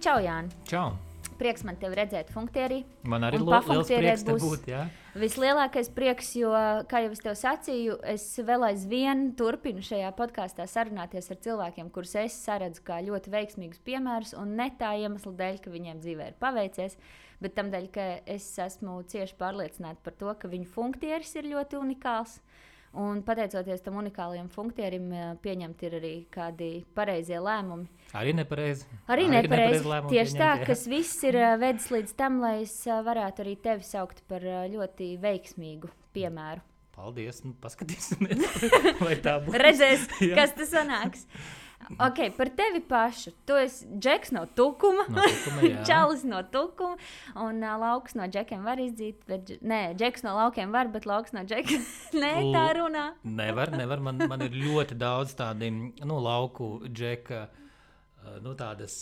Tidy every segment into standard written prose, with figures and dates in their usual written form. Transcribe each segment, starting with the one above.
Čau, Jāni. Čau. Prieks man tevi redzēt funktierī. Man arī liels prieks te būt, jā. Vislielākais prieks, jo, kā jau es tev sacīju, es vēl aizvien turpinu šajā podkāstā sarunāties ar cilvēkiem, kurus es saredzu kā ļoti veiksmīgus piemērus, un ne tā iemesla dēļ, ka viņiem dzīvē ir paveicies, bet tam dēļ, ka es esmu cieši pārliecināta par to, ka viņu funktieris ir ļoti unikāls. Un pateicoties tam unikālajam funktierim, pieņemt ir arī kādi pareizie lēmumi. Arī nepareizi. Arī nepareizi. Tieši tā, kas viss ir vedis līdz tam, lai es varētu arī tevi saukt par ļoti veiksmīgu piemēru. Paldies, paskatīsimies, vai tā būs. Redzēs, kas tas sanāks. Ok, par tevi pašu. Tu esi Džeks no Tukuma, Čalis no Tukuma, un lauks no Džekiem var izdzīt, bet, Džeks no laukiem var, bet lauks no Džekiem tā runā. Nevar, man ir ļoti daudz tādi, lauku Džeka, tādas,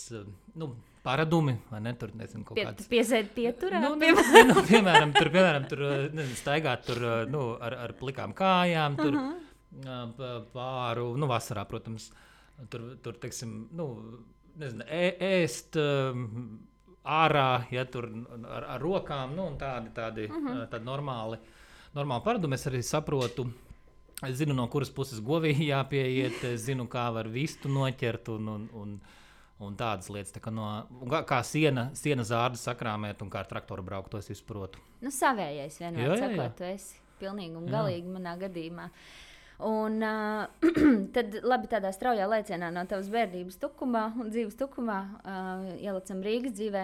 paradumi, vai ne, tur, nezinu, kaut kāds. Piesēd pieturā? Piemēram, tur staigāt tur, ar plikām kājām, tur pāru, vasarā, protams, tur teiksim, nezinu, ēst ārā, ja tur ar rokām, un tādi normāli paradumi. Es arī saprotu, es zinu, no kuras puses govī jāpieiet, es zinu, kā var vistu noķert un tādas lietas, tā kā siena zārdu sakrāmēt un kā ar traktoru braukt, to es izprotu. Savējais vienmēr sakot, tu esi pilnīgi un galīgi manā gadījumā. Un tad labi tādā straujā lēcienā no tavas bērnības Tukumā un dzīves Tukumā ielicam Rīgas dzīvē.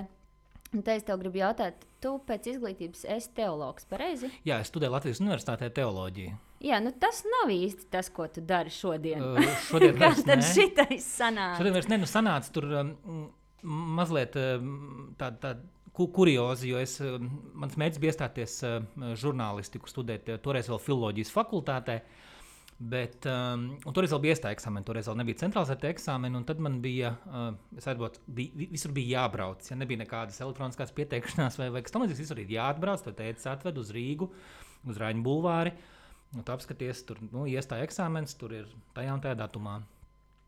Un te es tev gribu jautāt, tu pēc izglītības esi teologs, pareizi? Jā, es studēju Latvijas universitātē teoloģiju. Jā, tas nav īsti tas, ko tu dari šodien. Šodien kā tad šitais sanāca? Šodien vairs sanāca tur mazliet tāda kuriozi, jo mans mērķis bija iestāties žurnālistiku studēt, toreiz vēl filoloģijas fakultātē. Bet, un toreiz vēl bija iestāja eksāmeni, toreiz vēl nebija centralizēta eksāmeni, un tad man bija, visur bija jābrauc, ja nebija nekādas elektroniskās pieteikšanās vai kas tam līdzīgs, visur ir jāatbrauc, tad tētis atved uz Rīgu, uz Raņu bulvāri, un tu apskaties, tur, iestāja eksāmenis, tur ir tajā un tajā datumā.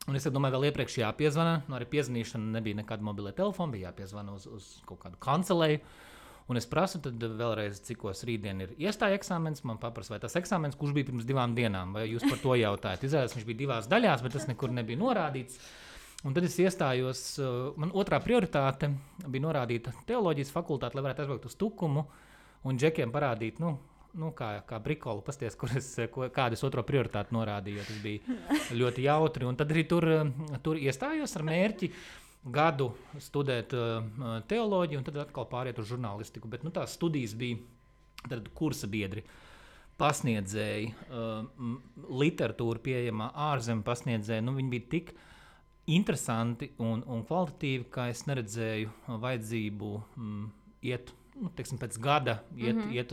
Un es domāju, vēl iepriekš jāpiezvana, arī piezvanīšana nebija nekāda mobilē telefona, bija jāpiezvana uz kaut kādu kancelēju. Un es prasu tad vēlreiz, cikos rītdien ir iestāja eksāmens, man paprasa, vai tas eksāmens, kurš bija pirms 2 dienām, vai jūs par to jautājat. Izrādās, viņš bija 2 daļās, bet tas nekur nebija norādīts. Un tad es iestājos, man otrā prioritāte bija norādīta teoloģijas fakultāte, lai varētu aizbraukt uz Tukumu un Džekiem parādīt, kā brikolu, pasties, kādas otro prioritāti norādīju, jo tas bija ļoti jautri. Un tad arī tur iestājos ar mērķi gadu studēt teoloģiju un tad atkal pāriet uz žurnālistiku. Bet tās studijas bija tad kursa biedri, pasniedzēji, literatūra pieejamā ārzemju pasniedzēji. Viņi bija tik interesanti un kvalitatīvi, ka es neredzēju vajadzību iet, pēc gada iet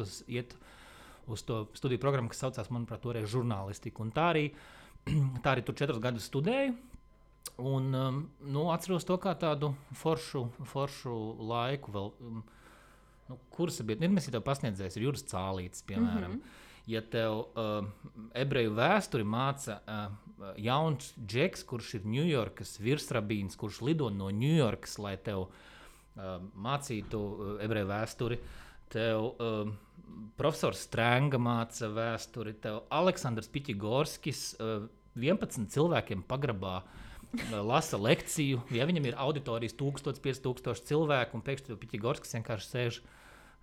uz to studiju programmu, kas saucās, manuprāt, toreiz žurnālistiku. Un tā arī tur 4 gadus studēju. Un atceros to kā tādu foršu laiku vēl, kursa biedri, mēs tev pasniedzējis, ir Juris Cālītis, piemēram. Ja tev ebreju vēsturi māca jauns Džeks, kurš ir Ņujorkas virsrabīns, kurš lido no Ņujorkas, lai tev mācītu ebreju vēsturi, tev profesors Strēnga māca vēsturi, tev Aleksandrs Piķigorskis 11 cilvēkiem pagrabā lasa lekciju, ja viņam ir auditorijas 1000-5000 cilvēku, un pēkšņi Piķigorskis vienkārši sēž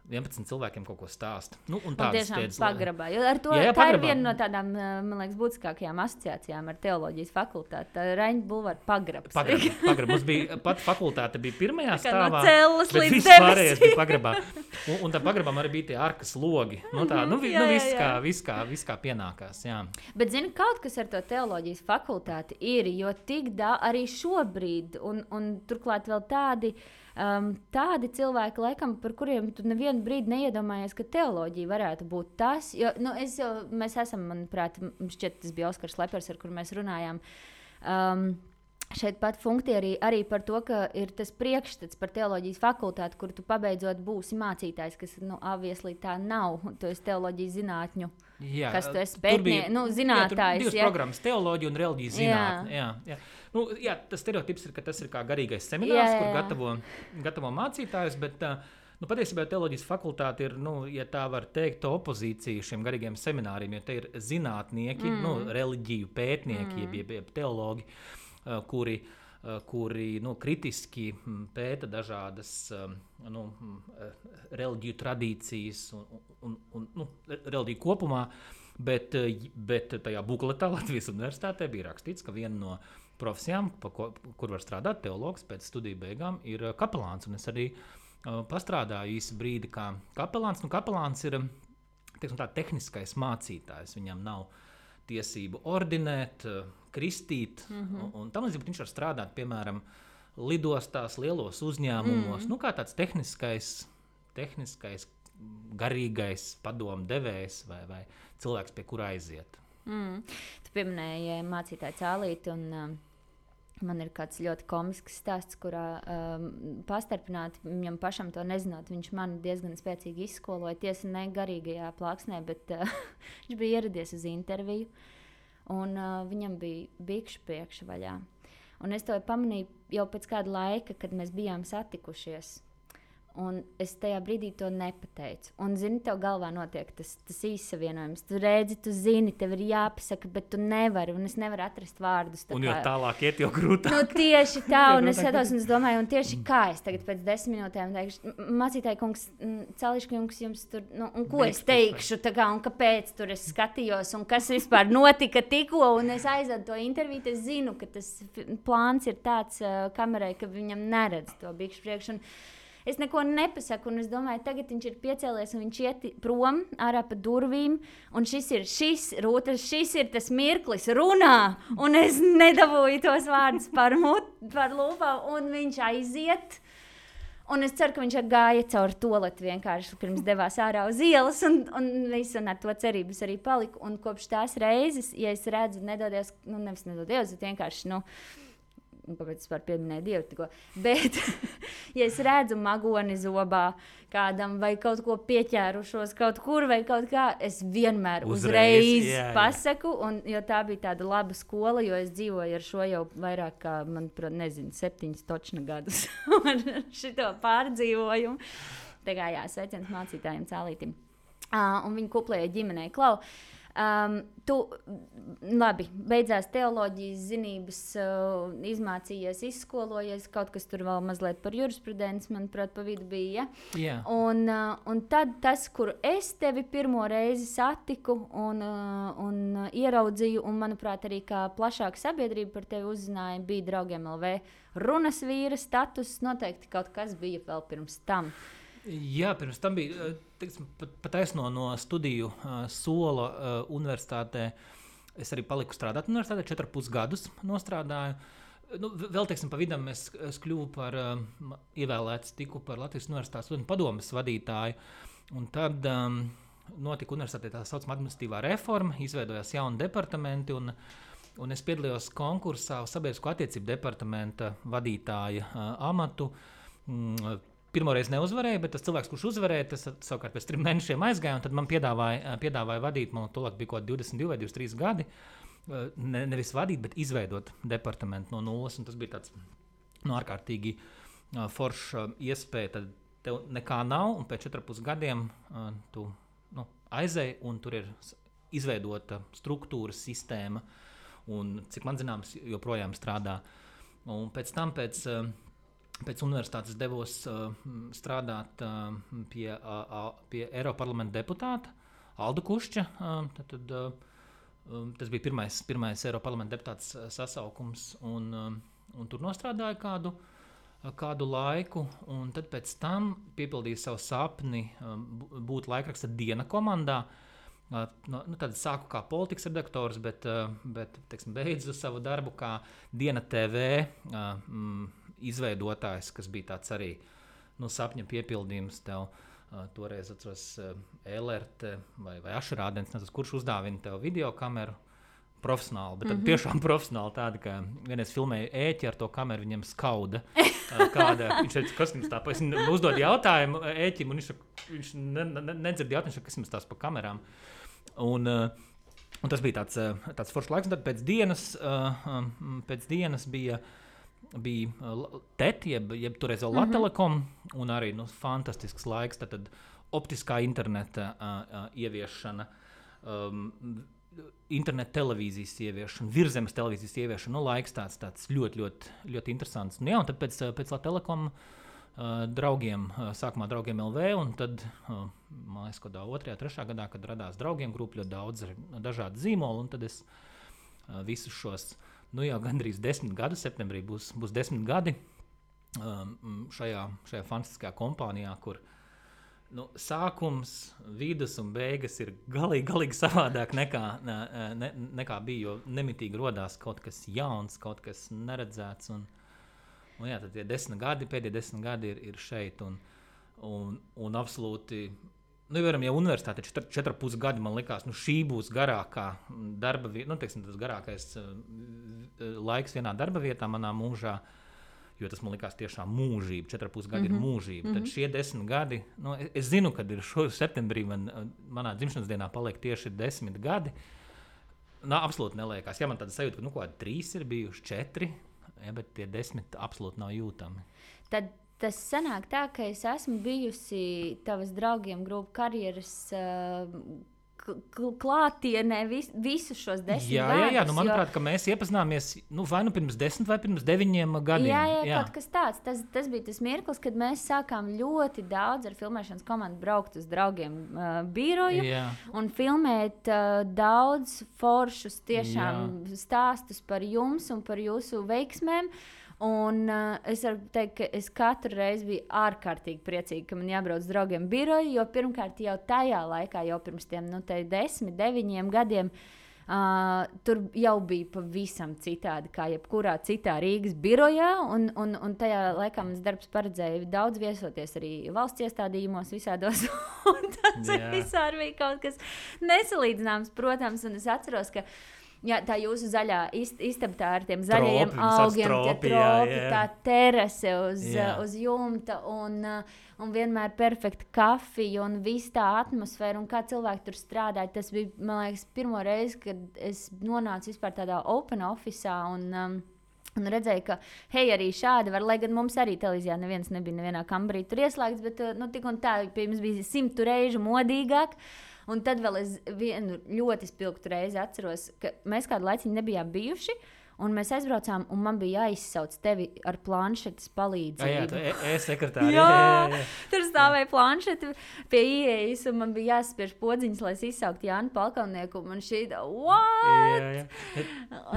11 cilvēkiem kaut ko stāsta. Un tiešām pagrabā. Jo ar to, tā ir viena no tādām, man liekas, būtiskākajām asociācijām ar teoloģijas fakultāti. Raņu bulvāra pagrabs. Pagrabs. Mums bija, pat fakultāte bija pirmajā stāvā, no cellas bet līdz viss pārējais bija pagrabā. Un tā pagrabām arī bija tie arkas logi. Viss kā pienākās. Jā. Bet zini, kaut kas ar to teoloģijas fakultāti ir, jo tik arī šobrīd, un turklāt vēl tādi cilvēki, laikam, par kuriem tu nevienu brīdi neiedomājies, ka teoloģija varētu būt tas. Jo, mēs esam, manuprāt, šķiet, tas bija Oskars Lepers, ar kuru mēs runājām. šeit pat funkcija arī par to, ka ir tas priekšstats par teoloģijas fakultāti, kur tu pabeidzot būsi mācītājs, kas, obviously tā nav. Tu esi teoloģijas zinātņu. Jā, kas tu esi zinātājs. Divas programmas - teoloģija un reliģijas zinātne. Jā. Tas stereotips ir, ka tas ir kā garīgais seminārs, kur gatavo mācītājus, bet patiesībā teoloģijas fakultāte ir, ja tā var teikt, opozīcija šiem garīgiem semināriem, jo te ir zinātnieki, reliģiju pētnieki, jeb teologi, kuri kritiski pēta dažādas reliģiju tradīcijas un reliģiju kopumā, bet tajā bukletā Latvijas universitātē bija rakstīts, ka viena no profesijām, kur var strādāt teologs pēc studiju beigām, ir kapelāns. Un es arī pastrādāju īsu brīdi kā kapelāns. Kapelāns ir tehniskais mācītājs. Viņam nav tiesību ordinēt, kristīt, un tam līdzīgi viņš var strādāt, piemēram, lidostās, lielos uzņēmumos, kā tāds tehniskais, garīgais padomu devējs vai cilvēks, pie kura aiziet. Tu pieminēji mācītāju Cālīti, un man ir kāds ļoti komisks stāsts, kurā pastarpināti viņam pašam to nezinot. Viņš mani diezgan spēcīgi izskoloja, tiesa ne garīgajā plāksnē, bet viņš bija ieradies uz interviju. Un viņam bija bikšu priekša vaļā. Un es to pamanīju jau pēc kāda laika, kad mēs bijām satikušies. Un es tajā brīdī to nepateicu. Un, zini, tev galvā notiek tas īssavienojums. Tu redzi, tu zini, tev ir jāpasaka, bet tu nevari. Un es nevaru atrast vārdus. Un jo tālāk iet, jo grūtāk. Tieši tā. Un es skatos un es domāju, un tieši kā es tagad pēc 10 minūtēm teikšu, mācītāji kungs, Cališka kungs, jums tur, un ko es teikšu, un kāpēc tur es skatījos, un kas vispār notika tikko. Un es aizvedu to interviju, es zinu, ka tas plāns ir tāds kamerai, ka viņam neredz to bikšu priekšu. Es neko nepasaku, un es domāju, tagad viņš ir piecēlies, un viņš iet prom ārā pa durvīm, un šis ir tas mirklis, runā, un es nedabūju tos vārdus par lūpām, un viņš aiziet. Un es ceru, ka viņš gāja cauri toaleti vienkārši pirms devās ārā uz ielas, un ar to cerības arī paliku. Un kopš tās reizes, ja es redzu, nevis nedodies, bet vienkārši, kāpēc es pieminēju Dievu tikko, bet, ja es redzu magoni zobā kādam vai kaut ko pieķērušos kaut kur vai kaut kā, es vienmēr uzreiz pasaku, jo tā bija tāda laba skola, jo es dzīvoju ar šo jau vairāk kā, manuprāt, 7 točna gadus ar šito pārdzīvojumu. Tā kā sveiciens mācītājiem Cālītim. Un viņi kuplēja ģimenei Klau. Tu labi, beidzās teoloģijas zinības, izmācījies, izskolojies, kaut kas tur vēl mazliet par jurisprudenci, manuprāt, pa vidu bija. Ja? Un tad tas, kur es tevi pirmo reizi satiku un ieraudzīju, un, manuprāt, arī kā plašāka sabiedrība par tevi uzzināja, bija Draugiem LV runas vīra status. Noteikti kaut kas bija vēl pirms tam. Jā, pirms tam bija pataisno no studiju sola universitātē. Es arī paliku strādāt universitātē, 4,5 gadus nostrādāju. Vēl, pa vidam es kļuvu par ievēlēts, tiku par Latvijas universitātes studentu padomes vadītāju. Un tad notika universitātē tā saucamā administratīvā reforma, izveidojās jauni departamenti, un es piedalījos konkursā uz sabiedrisko attiecību departamenta vadītāja amatu. Pirmoreiz neuzvarēju, bet tas cilvēks, kurš uzvarēja, tas savukārt pēc 3 mēnešiem aizgāja, un tad man piedāvāja vadīt, man tolāk bija kaut 22 vai 23 gadi, nevis vadīt, bet izveidot departamentu no nulles, un tas bija tāds ārkārtīgi forša iespēja, tad tev nekā nav, un pēc 4,5 gadiem tu aizēji, un tur ir izveidota struktūra, sistēma, un, cik man zināms, joprojām strādā. Un pēc tam, pēc universitātes devos strādāt pie Eiroparlamenta deputāta Alda Kušķa. Tas bija pirmais Eiroparlamenta deputāts sasaukums, un tur nostrādāju kādu laiku. Un tad pēc tam piepildīju savu sapni būt laikraksta Diena komandā. Tad sāku kā politikas redaktors, bet beidzu savu darbu kā Diena TV izveidotājs, kas bija tāds arī sapņa piepildījums tev. Toreiz atceros LRT vai Ašrādens, kurš uzdāvina tev videokameru, profesionāli, bet tiešām profesionāli tādi, ka vienreiz filmēja ēķi ar to kameru, viņam skauda. Viņš teica, kas jums tā, es uzdod jautājumu ēķim, un viņš nedzird jautājumu, kas jums tās pa kamerām. Un tas bija tāds foršs laiks, un tad pēc dienas bija TET, jeb toreiz vēl Latelekom, un arī fantastisks laiks, tad optiskā interneta ieviešana, interneta televīzijas ieviešana, virzemes televīzijas ieviešana, laiks tāds ļoti, ļoti, ļoti interesants. Un tad pēc Latelekom draugiem, sākumā draugiem LV, un tad, man liekas, kādā 2., 3. gadā, kad radās draugiem grupa, ļoti daudz dažādu zīmolu, un tad es visus šos, jau gandrīz 10 gadu, septembrī būs 10 gadi šajā fantastiskajā kompānijā, kur sākums, vidus un beigas ir galīgi savādāk nekā bija, jo nemitīgi rodās kaut kas jauns, kaut kas neredzēts. Un tad tie 10 gadi, pēdējie 10 gadi ir šeit. Un absolūti, jau universitāte 4,5 gadi man likās, šī būs garākā darba vieta, tas garākais laiks vienā darba vietā manā mūžā. Jo tas man likās tiešām mūžība, 4,5 gadi ir mūžība. Tad šie 10 gadi, es zinu, kad ir šo septembrī manā dzimšanas dienā paliek tieši 10 gadi. Absolūti neliekās. Man tāda sajūta, ka 3 ir bijuši 4, bet tie 10 absolūti nav jūtami. Tad tas sanāk tā, ka es esmu bijusi tavas draugiem grupu karjeras klātienē visus šos 10 gadus. Jā, manuprāt, ka mēs iepazināmies vai pirms 10 vai pirms 9 gadiem. Jā, kaut kas tāds. Tas bija tas mirklis, kad mēs sākām ļoti daudz ar filmēšanas komandu braukt uz draugiem biroju un filmēt daudz foršus tiešām stāstus par jums un par jūsu veiksmēm. Un es varu teikt, ka es katru reizi biju ārkārtīgi priecīga, ka man jābrauc uz draugiem biroju, jo pirmkārt jau tajā laikā, jau pirms tiem 10, 9 gadiem, tur jau bija pavisam citādi kā jebkurā citā Rīgas birojā, un tajā laikā mans darbs paredzēja daudz viesoties arī valsts iestādījumos visādos, un tas visādi bija kaut kas nesalīdzināms, protams, un es atceros, ka tā jūsu zaļā istaba ar tiem zaļajiem augiem, tā terase uz jumta un vienmēr perfekta kafija un viss tā atmosfēra un kā cilvēki tur strādāja. Tas bija, man liekas, pirmo reizi, kad es nonācu vispār tādā open office'ā un redzēju, ka arī šādi var, lai gan mums arī televīzijā neviens nebija nevienā kambarī tur ieslēgts, bet tik un tā, pie mums bija 100 reižu modīgāk. Un tad vēl es vienu ļoti spilgtu reizi atceros, ka mēs kādu laiciņu nebijām bijuši, un mēs aizbraucām, un man bija jāizsauc tevi ar planšetes palīdzību. E-sekretāri. Jā, tur stāvēja planšete pie ieejas, un man bija jāspiež podziņas, lai es izsauktu Jānu Palkalnieku, un man šķīta, what?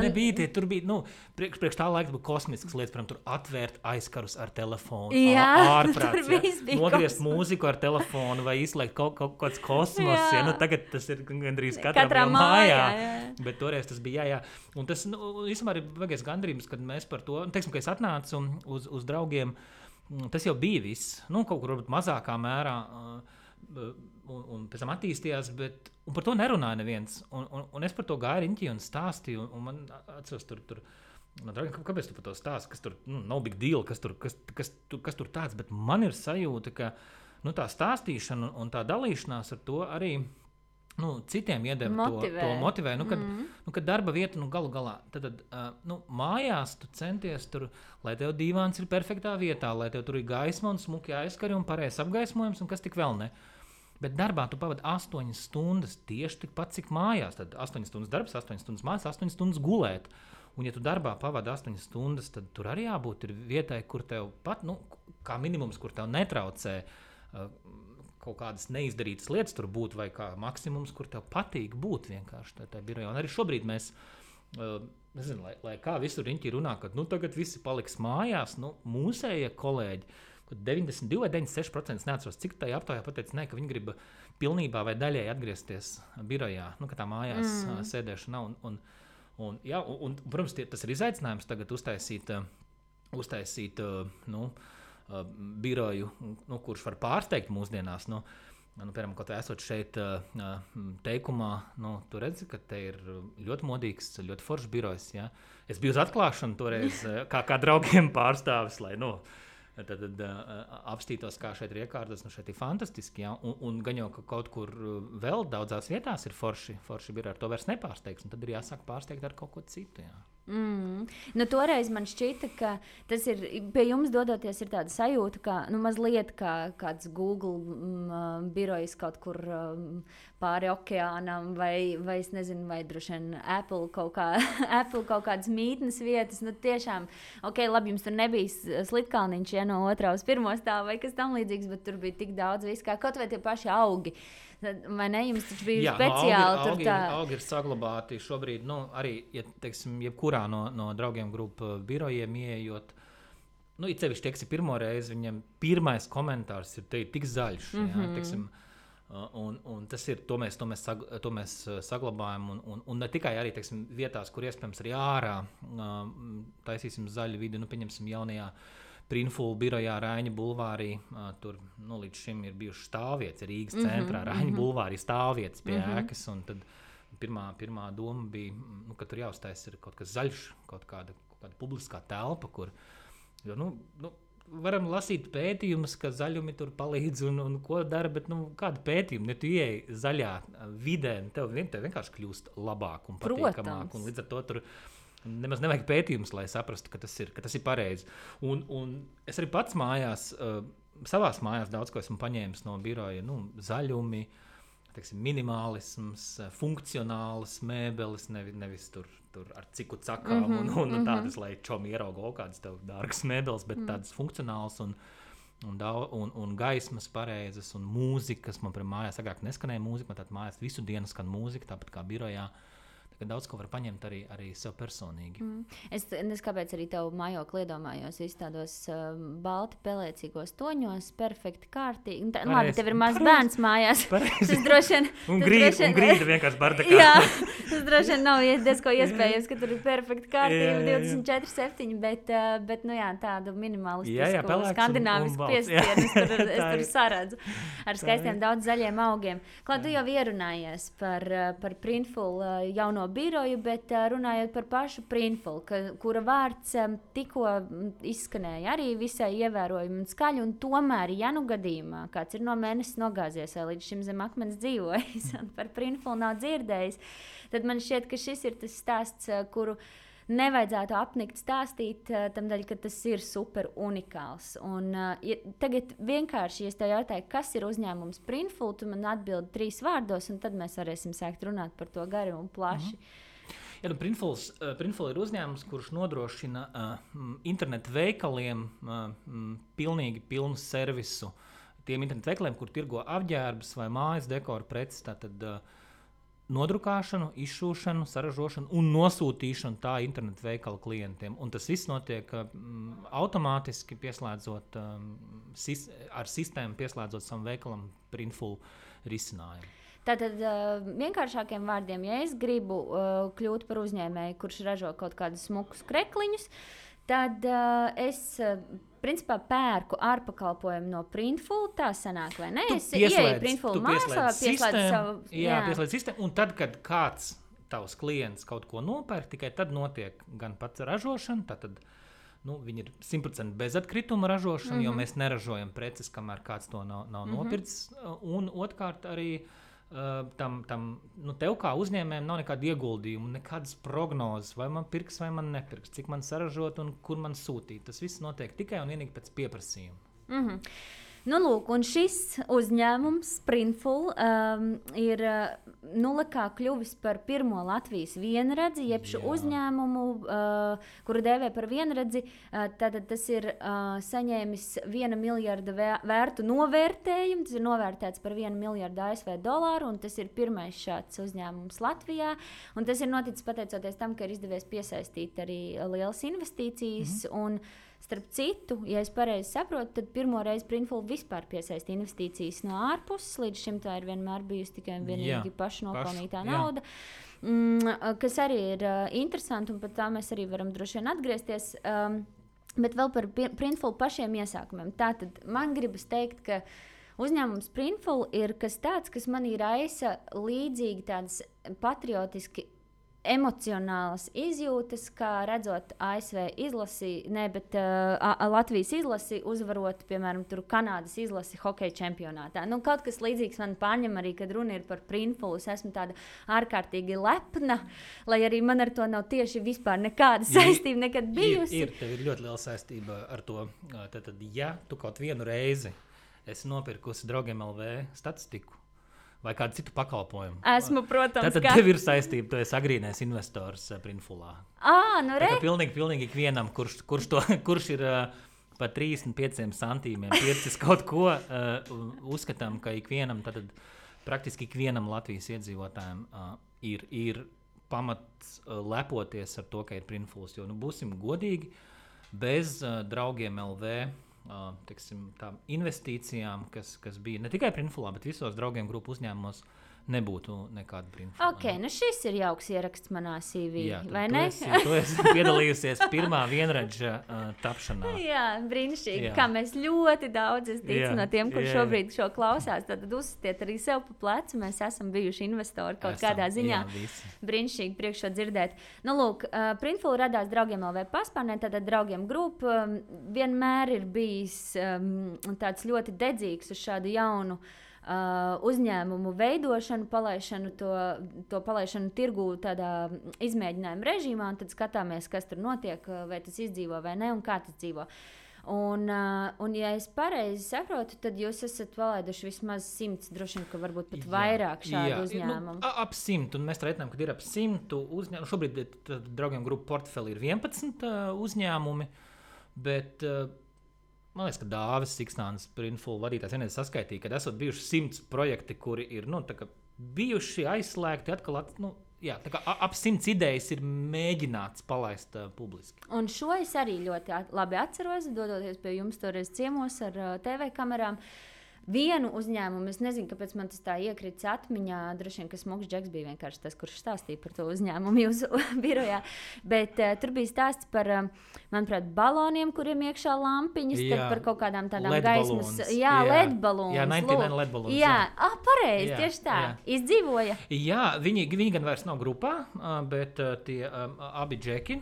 Nebija tie, tur bija, priekš tā laika bija kosmisks lietas, piemēram, tur atvērt aizkarus ar telefonu, ārprāts, nogriezt mūziku ar telefonu, vai izslēgt kaut kāds kosmos, tagad tas ir gandrīz katrā mājā. Bet toreiz tas bija, jā. Un tas, īstenībā ir vajagais gandrības, kad mēs par to, teiksim, ka es atnācu uz draugiem, tas jau bija viss, kaut kur varbūt mazākā mērā, un pēc tam attīstījās, bet un par to nerunāja neviens. Un es par to gāju riņķī un stāstīju, un man atceros tur kāpēc tu par to stāsti, kas tur nav big deal, kas tur tāds, bet man ir sajūta, ka tā stāstīšana un tā dalīšanās ar to arī citiem iedeva to motivē. Kad darba vieta galu galā, tad mājās tu centies tur, lai tev dīvāns ir perfektā vietā, lai tev tur ir gaisma un smuki aizskari un pareizs apgaismojums un kas tik vēl ne. Bet darbā tu pavadi 8 stundas tieši tikpat, cik mājās. Tad 8 stundas darbs, 8 stundas mājās, 8 stundas gulēt. Un ja tu darbā pavadi 8 stundas, tad tur arī jābūt ir vietai, kur tev pat, kā minimums, kur tev netraucē kaut kādas neizdarītas lietas tur būt, vai kā maksimums, kur tev patīk būt vienkārši tajā birojā. Un arī šobrīd mēs, nezinu, lai kā visur riņķī runā, ka tagad visi paliks mājās, mūsējie kolēģi, kad 92 vai 96% neatceros, cik tajā aptaujā pateica, ka viņi grib pilnībā vai daļēji atgriezties birojā, ka tā mājās sēdēšana nav. Un, protams, tas ir izaicinājums tagad uztaisīt biroju, kurš var pārsteigt mūsdienās. piemēram, kaut vai esot šeit teikumā, tu redzi, ka te ir ļoti modīgs, ļoti foršs birojs. Ja? Es biju uz atklāšanu toreiz kā draugiem pārstāvis, lai tad apstītos, kā šeit ir iekārtas. Šeit ir fantastiski. Ja? Un gan jau, ka kaut kur vēl daudzās vietās ir forši biroji, ar to vairs nepārsteigs. Un tad ir jāsāk pārsteigt ar kaut ko citu. Ja? Toreiz man šķita, ka tas ir pie jums dodoties, ir tāda sajūta, ka mazliet kā kāds Google birojs kaut kur pāri okeānam, vai es nezinu, vai droši vien Apple kaut kādas mītnes vietas. Tiešām, labi, jums tur nebija slitkalniņš no 2. uz 1. stāva vai kas tam līdzīgs, bet tur bija tik daudz viss, kā kaut vai tie paši augi. Vai ne? Jums taču bija speciāli augi ir saglabāti šobrīd, arī, ja teiksim, jebkurā no draugiem grupu birojiem ieejot, it sevišķi, teiksim, pirmo reizi viņam pirmais komentārs ir tik zaļš, ja, teiksim, un tas ir, to mēs saglabājam, un ne tikai arī, teiksim, vietās, kur iespējams arī ārā taisīsim zaļu vidi, pieņemsim jaunajā Printful birojā Raiņa bulvārī, tur līdz šim ir bijuši stāvvietas Rīgas centrā, Raiņa bulvārī stāvvietas pie ēkas, un tad pirmā doma bija, ka tur jāuztais ir kaut kas zaļš, kaut kāda publiskā telpa, kur, varam lasīt pētījumus, ka zaļumi tur palīdz un ko dara, bet kāda pētījuma, ja tu ieej zaļā vidē, tev vienkārši kļūst labāk un patīkamāk, un līdz ar to tur nemaz nevajag pētījumus, lai saprastu, ka tas ir pareizi. Un es arī pats mājās, savās mājās daudz ko esmu paņēmis no biroja, zaļumi, teiksim, minimālisms, funkcionālas mēbeles, nevis tur ar ciku cakām un tādas, lai čomi ieraugo kādas tev dārgas mēbeles, bet tādas funkcionālas un gaismas pareizas un mūzikas. Man mājās agrāk neskanēja mūzika, man tātad mājās visu dienu skan mūzika, tāpat kā birojā. Daudz ko var paņemt arī sev personīgi. Es kāpēc arī tavu mājokli iedomājos visu tādos balti pelēcīgos toņos, perfekti kārtīgi. Labi, tev ir mazs bērns mājās. Tas droši vien... Un grīda vienkārši bardakā. Jā, tas droši vien nav diezko iespējams, ka tur ir perfekti kārtība 24/7, bet tādu minimalistisku, skandināvisku piestienu es tur saredzu ar skaistiem daudz zaļiem augiem. Klāt, tu jau ierunājies par Printful jauno biroju, bet runājot par pašu Printful, kura vārds tikko izskanēja arī visai ievērojami un skaļi, un tomēr, ja gadījumā kāds ir no mēnesis nogāzies vai līdz šim zem akmens dzīvojis un par Printful nav dzirdējis, tad man šķiet, ka šis ir tas stāsts, kuru nevajadzētu apnikt stāstīt, tamdēļ, ka tas ir super unikāls. Un tagad vienkārši, ja es tev jautāju, kas ir uzņēmums Printful, tu man atbildi 3 vārdos, un tad mēs varēsim sākt runāt par to gari un plaši. Ja, Printful ir uzņēmums, kurš nodrošina internetu veikaliem pilnīgi pilnu servisu. Tiem internetu veikaliem, kur tirgo apģērbus vai mājas dekoru preces, tātad nodrukāšanu, izšūšanu, saražošanu un nosūtīšanu tā internetu veikala klientiem. Un tas viss notiek automātiski pieslēdzot, ar sistēmu pieslēdzot savam veikalam Printful risinājumu. Tātad vienkāršākiem vārdiem, ja es gribu kļūt par uzņēmēju, kurš ražo kaut kādus smukus krekliņus, tad es principā pērku ārpakalpojumu no Printful, tā sanāk, vai ne? Es ieeju Printful mājaslapā, pieslēdzu savu... Jā, pieslēdz sistēmu, un tad, kad kāds tavs klients kaut ko nopērk, tikai tad notiek gan pats ražošana, tātad viņi ir 100% bezatkrituma ražošana, jo mēs neražojam preces, kamēr kāds to nav nopircis, un otrkārt arī tev kā uzņēmējiem nav nekāda ieguldījuma, nekādas prognozes, vai man pirks, vai man nepirks, cik man saražot un kur man sūtīt. Tas viss notiek tikai un vienīgi pēc pieprasījuma. Lūk, un šis uzņēmums Printful ir kā kļuvis par pirmo Latvijas vienredzi, jeb šo uzņēmumu, kuru dēvē par vienredzi, tātad tas ir saņēmis 1 miljarda vērtu novērtējumu, tas ir novērtēts par 1 miljardu ASV dolāru, un tas ir pirmais šāds uzņēmums Latvijā, un tas ir noticis pateicoties tam, ka ir izdevies piesaistīt arī lielas investīcijas, un starp citu, ja es pareizi saprotu, tad pirmo reizi Printful vispār piesaista investīcijas no ārpuses. Līdz šim tā ir vienmēr bijusi tikai un vienīgi pašnopelnītā nauda, kas arī ir interesanti, un par tā mēs arī varam droši vien atgriezties. Bet vēl par Printful pašiem iesākumiem. Tātad man gribas teikt, ka uzņēmums Printful ir kas tāds, kas manī raisa līdzīgi tādas patriotiski emocionālas izjūtas, kā redzot ASV izlasi, bet Latvijas izlasi uzvarot, piemēram, Kanādas izlasi hokeja čempionātā. Kaut kas līdzīgs man pārņem arī, kad runa ir par Printful. Es esmu tāda ārkārtīgi lepna, lai arī man ar to nav tieši vispār nekāda saistība nekad bijusi. Tev ir ļoti liela saistība ar to. Tad, ja tu kaut vienu reizi esi nopirkusi Draugiem LV statistiku, vai kādu citu pakalpojumu. Esmu, protams, tad tev ir saistība, tu esi agrīnais investors Printfulā. Pilnīgi ikvienam, kurš ir par 35 centīmiem pircis kaut ko, uzskatām, ka ikvienam, tad praktiski ikvienam Latvijas iedzīvotājiem ir pamats lepoties ar to, ka ir Printfuls. Jo, būsim godīgi, bez Draugiem LV investīcijām, kas bija ne tikai Printfulā, bet visos Draugiem grupu uzņēmumos, nebūtu nekāda Printfula. Šis ir jauks ieraksts manā CV, vai ne? Tu esi piedalījusies pirmā vienradža tapšanā. Jā, brīnišķīgi, kā mēs ļoti daudz, es ticu, no tiem, kur šobrīd šo klausās, tad uzsitiet arī sev pa plecu, mēs esam bijuši investori kaut kādā ziņā. Brīnišķīgi priekš šo dzirdēt. Printful radās Draugiem LV paspārnē, tātad Draugiem grupa vienmēr ir bijis tāds ļoti dedzīgs uz šādu jaunu uzņēmumu veidošanu, palaišanu, to palaišanu tirgū tādā izmēģinājuma režīmā, un tad skatāmies, kas tur notiek, vai tas izdzīvo vai ne, un kā tas dzīvo. Un ja es pareizi saprotu, tad jūs esat palaiduši vismaz 100, droši vien, ka varbūt pat vairāk šādu uzņēmumu. Ap 100, un mēs reiķinām, ka ir ap 100 uzņēmumu. Šobrīd Draugiem grupu portfeli ir 11 uzņēmumi, bet man liekas, ka Dāvis Siksnāns, Printful vadītājs, vienreiz saskaitīja, ka esot bijuši 100 projekti, kuri ir bijuši aizslēgti atkal. Ap 100 idejas ir mēģināts palaist publiski. Un šo es arī ļoti labi atceros, dodoties pie jums toreiz ciemos ar TV kamerām. Vienu uzņēmumu, es nezinu, kāpēc man tas tā iekrits atmiņā, droši vien, ka Smuks Džeks bija vienkārši tas, kurš stāstīja par to uzņēmumu jūsu birojā, bet tur bija stāsts par, manuprāt, baloniem, kuriem iekšā lampiņas, tad par kaut kādām tādām gaismas, LED balons. Jā, 99 LED balons. Jā, pareizi, tieši tā. Izdzīvoja. Jā, viņi gan vairs nav grupā, bet tie abi džeki,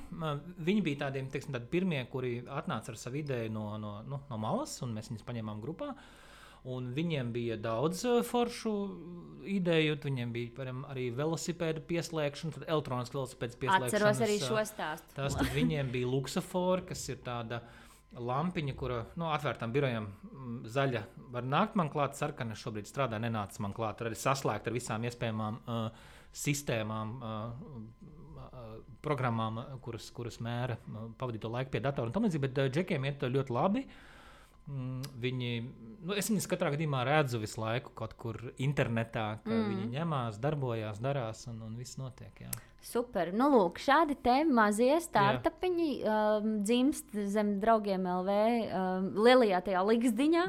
viņi bija tādiem, teiksim, tādi pirmie, kuri atnāca ar savu ideju no malas, un mēs viņus paņēmām grupā. Un viņiem bija daudz foršu ideju, viņiem bija arī velosipēdu pieslēgšana, tad elektronisks velosipēds pieslēgšanas. Atceros arī šo stāstu. Tas tad viņiem bija Luxafor, kas ir tāda lampiņa, kura atvērtām birojām zaļa var nākt man klāt, sarkana šobrīd strādā, nenāca man klāt, arī saslēgt ar visām iespējamām sistēmām, programmām, kuras mēra pavadīto laiku pie datora un tam līdzīgi, bet džekiem iet ļoti labi. Viņi, es viņus katrā gadījumā redzu visu laiku kaut kur internetā, ka viņi ņemās, darbojās, darās un viss notiek. Jā. Super. Lūk, šādi te mazie startupiņi dzimst zem Draugiem LV lielajā tajā liksdiņā,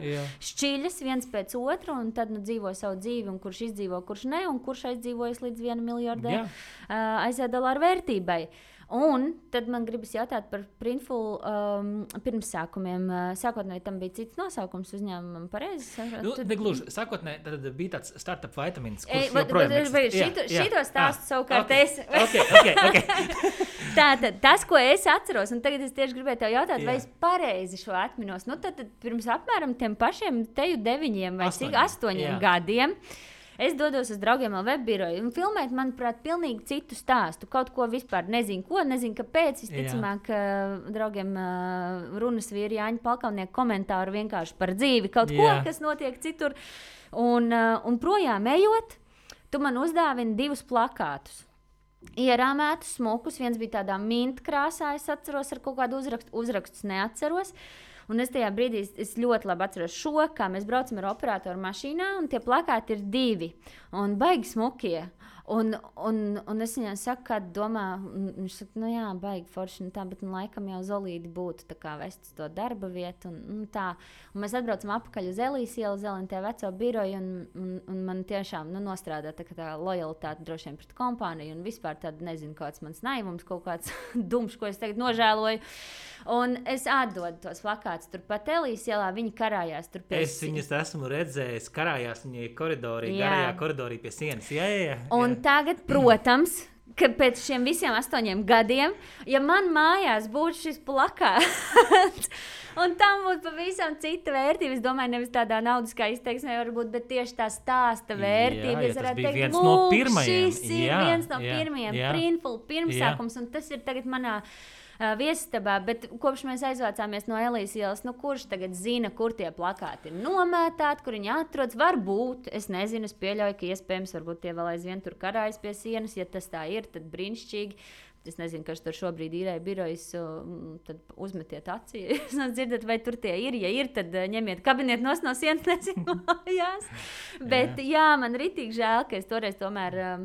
šķiļas viens pēc otru, un tad dzīvo savu dzīvi, un kurš izdzīvo, kurš ne, un kurš aizdzīvojas līdz $1 miljardē $1 vērtībai. Un tad man gribas jautāt par Printful pirmsākumiem. Sākotnēji tam bija cits nosaukums uzņēmumam, pareizi? Negluži. Sākotnēji tad bija tāds startup vitamins, kurš joprojām eksistē. Šito stāstu savukārt es. Okay. Tātad, tas, ko es atceros, un tagad es tieši gribēju tev jautāt, vai es pareizi šo atminos. Tad pirms apmēram tiem pašiem teju 9 vai 8 gadiem. Es dodos uz Draugiem LV biroju un filmēt, manuprāt, pilnīgi citu stāstu. Kaut ko vispār nezinu, kāpēc. Visticamāk, Draugiem runas vīri Jāņa Palkavnieka komentāru vienkārši par dzīvi, kaut ko, kas notiek citur. Un projām ejot, tu man uzdāvini 2 plakātus. Ierāmētus, smukus, viens bija tādā mint krāsā, es atceros, ar kaut kādu uzrakstus neatceros. Un es tajā brīdī ļoti labi atceros šo, kā mēs braucam ar operatoru mašīnā, un tie plakāti ir 2. Un baigi smukie. Un es viņai saku, kāda domā, viņš saka, nu jā, baigi forši, tā, bet laikam jau Zolīdi būtu tā kā vest to darba vietu. Un tā. Un mēs atbraucam apakaļ uz Elijas ielu, Zelentē veco biroju, un man tiešām nostrādā tā lojalitāte droši vien pret kompāniju, un vispār tāda, nezinu, kāds mans naivums, kaut kāds dumšs, ko es tagad nožēloju. Un es atdodu tos plakātus turpat Elijas ielā, viņi karājās tur pie sienas. Es viņus esmu redzējis, karājās viņi koridorī, garajā koridorī pie sienas. Jā. Un tagad, protams, ka pēc šiem visiem 8 gadiem, ja man mājās būtu šis plakāts, un tam būtu pavisam cita vērtība, es domāju, nevis tādā naudiskā izteiksmē varbūt, bet tieši tā stāsta vērtība. Jā, tas bija viens no pirmajiem. Šis ir viens no pirmajiem, Printful pirmsākums, un tas ir tagad manā viesistabā, bet kopš mēs aizvācāmies no Elijas ielas, kurš tagad zina, kur tie plakāti ir nomētāti, kur viņi atrodas. Varbūt, es nezinu, es pieļauju, ka iespējams, varbūt tie vēl aizvien tur karājas pie sienas. Ja tas tā ir, tad brīnišķīgi. Es nezinu, kas tur šobrīd īrē birojas, tad uzmetiet acī. Es dzirdat, vai tur tie ir. Ja ir, tad ņemiet kabinetu no sienas, nezinu, mājās. Bet jā, man ritīgi žēl, ka es toreiz tomēr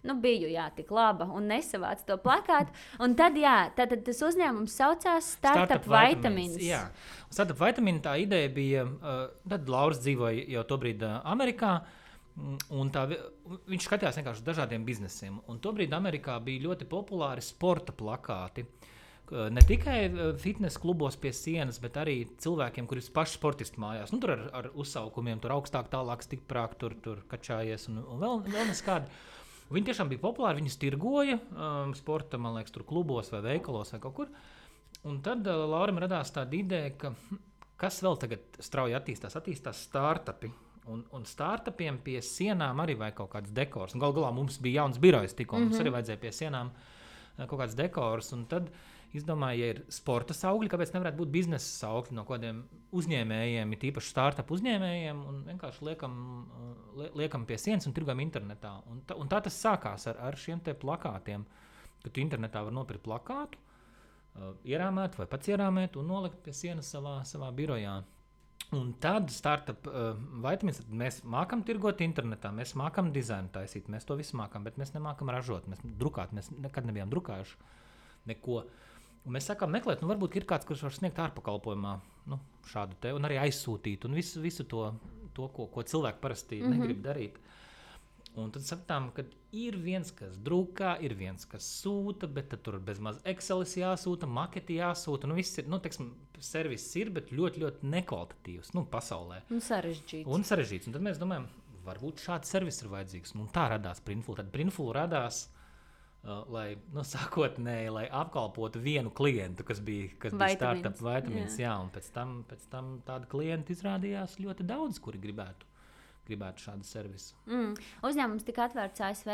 biju tik laba un nesavācu to plakātu. Un tad, tad tas uzņēmums saucās Startup Vitamins. Jā, Startup Vitamins tā ideja bija, tad Lauris dzīvoja jau tobrīd Amerikā, un viņš skatījās vienkārši dažādiem biznesiem. Un tobrīd Amerikā bija ļoti populāri sporta plakāti. Ne tikai fitness klubos pie sienas, bet arī cilvēkiem, kuri ir paši sportisti mājās. Tur ar uzsaukumiem, tur augstāk, tālāk, stiprāk, tur kačājies un vēl neskādi. Viņi tiešām bija populāri, viņus tirgoja sporta, man liekas, tur klubos vai veikalos vai kaut kur. Un tad Laurim radās tāda ideja, ka kas vēl tagad strauji attīstās startupi. Un startupiem pie sienām arī vajag kaut kāds dekors. Galu galā mums bija jauns birojs tikko, mums arī vajadzēja pie sienām kaut kāds dekors. Un tad izdomāju, ja ir sporta saukļi, kāpēc nevarētu būt biznesa saukļi no kādiem uzņēmējiem, tīpaši startup uzņēmējiem, un vienkārši liekam pie sienas un tirgojam internetā. Un tā tas sākās ar šiem te plakātiem, ka tu internetā var nopirkt plakātu, ierāmēt vai pats ierāmēt un nolikt pie sienas savā birojā. Un tad Startup Vitamins, mēs mākam tirgot internetā, mēs mākam dizainu taisīt, mēs to visu mākam, bet mēs nemākam ražot, mēs nekad nebijām drukājuši neko. Un mēs sākām meklēt, varbūt ir kāds, kurš var sniegt ārpakalpojumā šādu te, un arī aizsūtīt, un visu to ko cilvēki parasti negrib darīt. Un tad sapratām, ka ir viens, kas drukā, ir viens, kas sūta, bet tad tur bezmaz Excelis jāsūta, maketi jāsūta, viss ir, serviss ir, bet ļoti, ļoti nekvalitatīvs, pasaulē. Un sarežģīts. Un tad mēs domājam, varbūt šāds servis ir vajadzīgs. Un tā radās Printful. Tad Printful radās lai apkalpotu vienu klientu, kas bija Startup Vitamins, jā, un pēc tam tādi klienti izrādījās ļoti daudz, kuri gribētu šādu servisu. Uzņēmums tika atvērts ASV?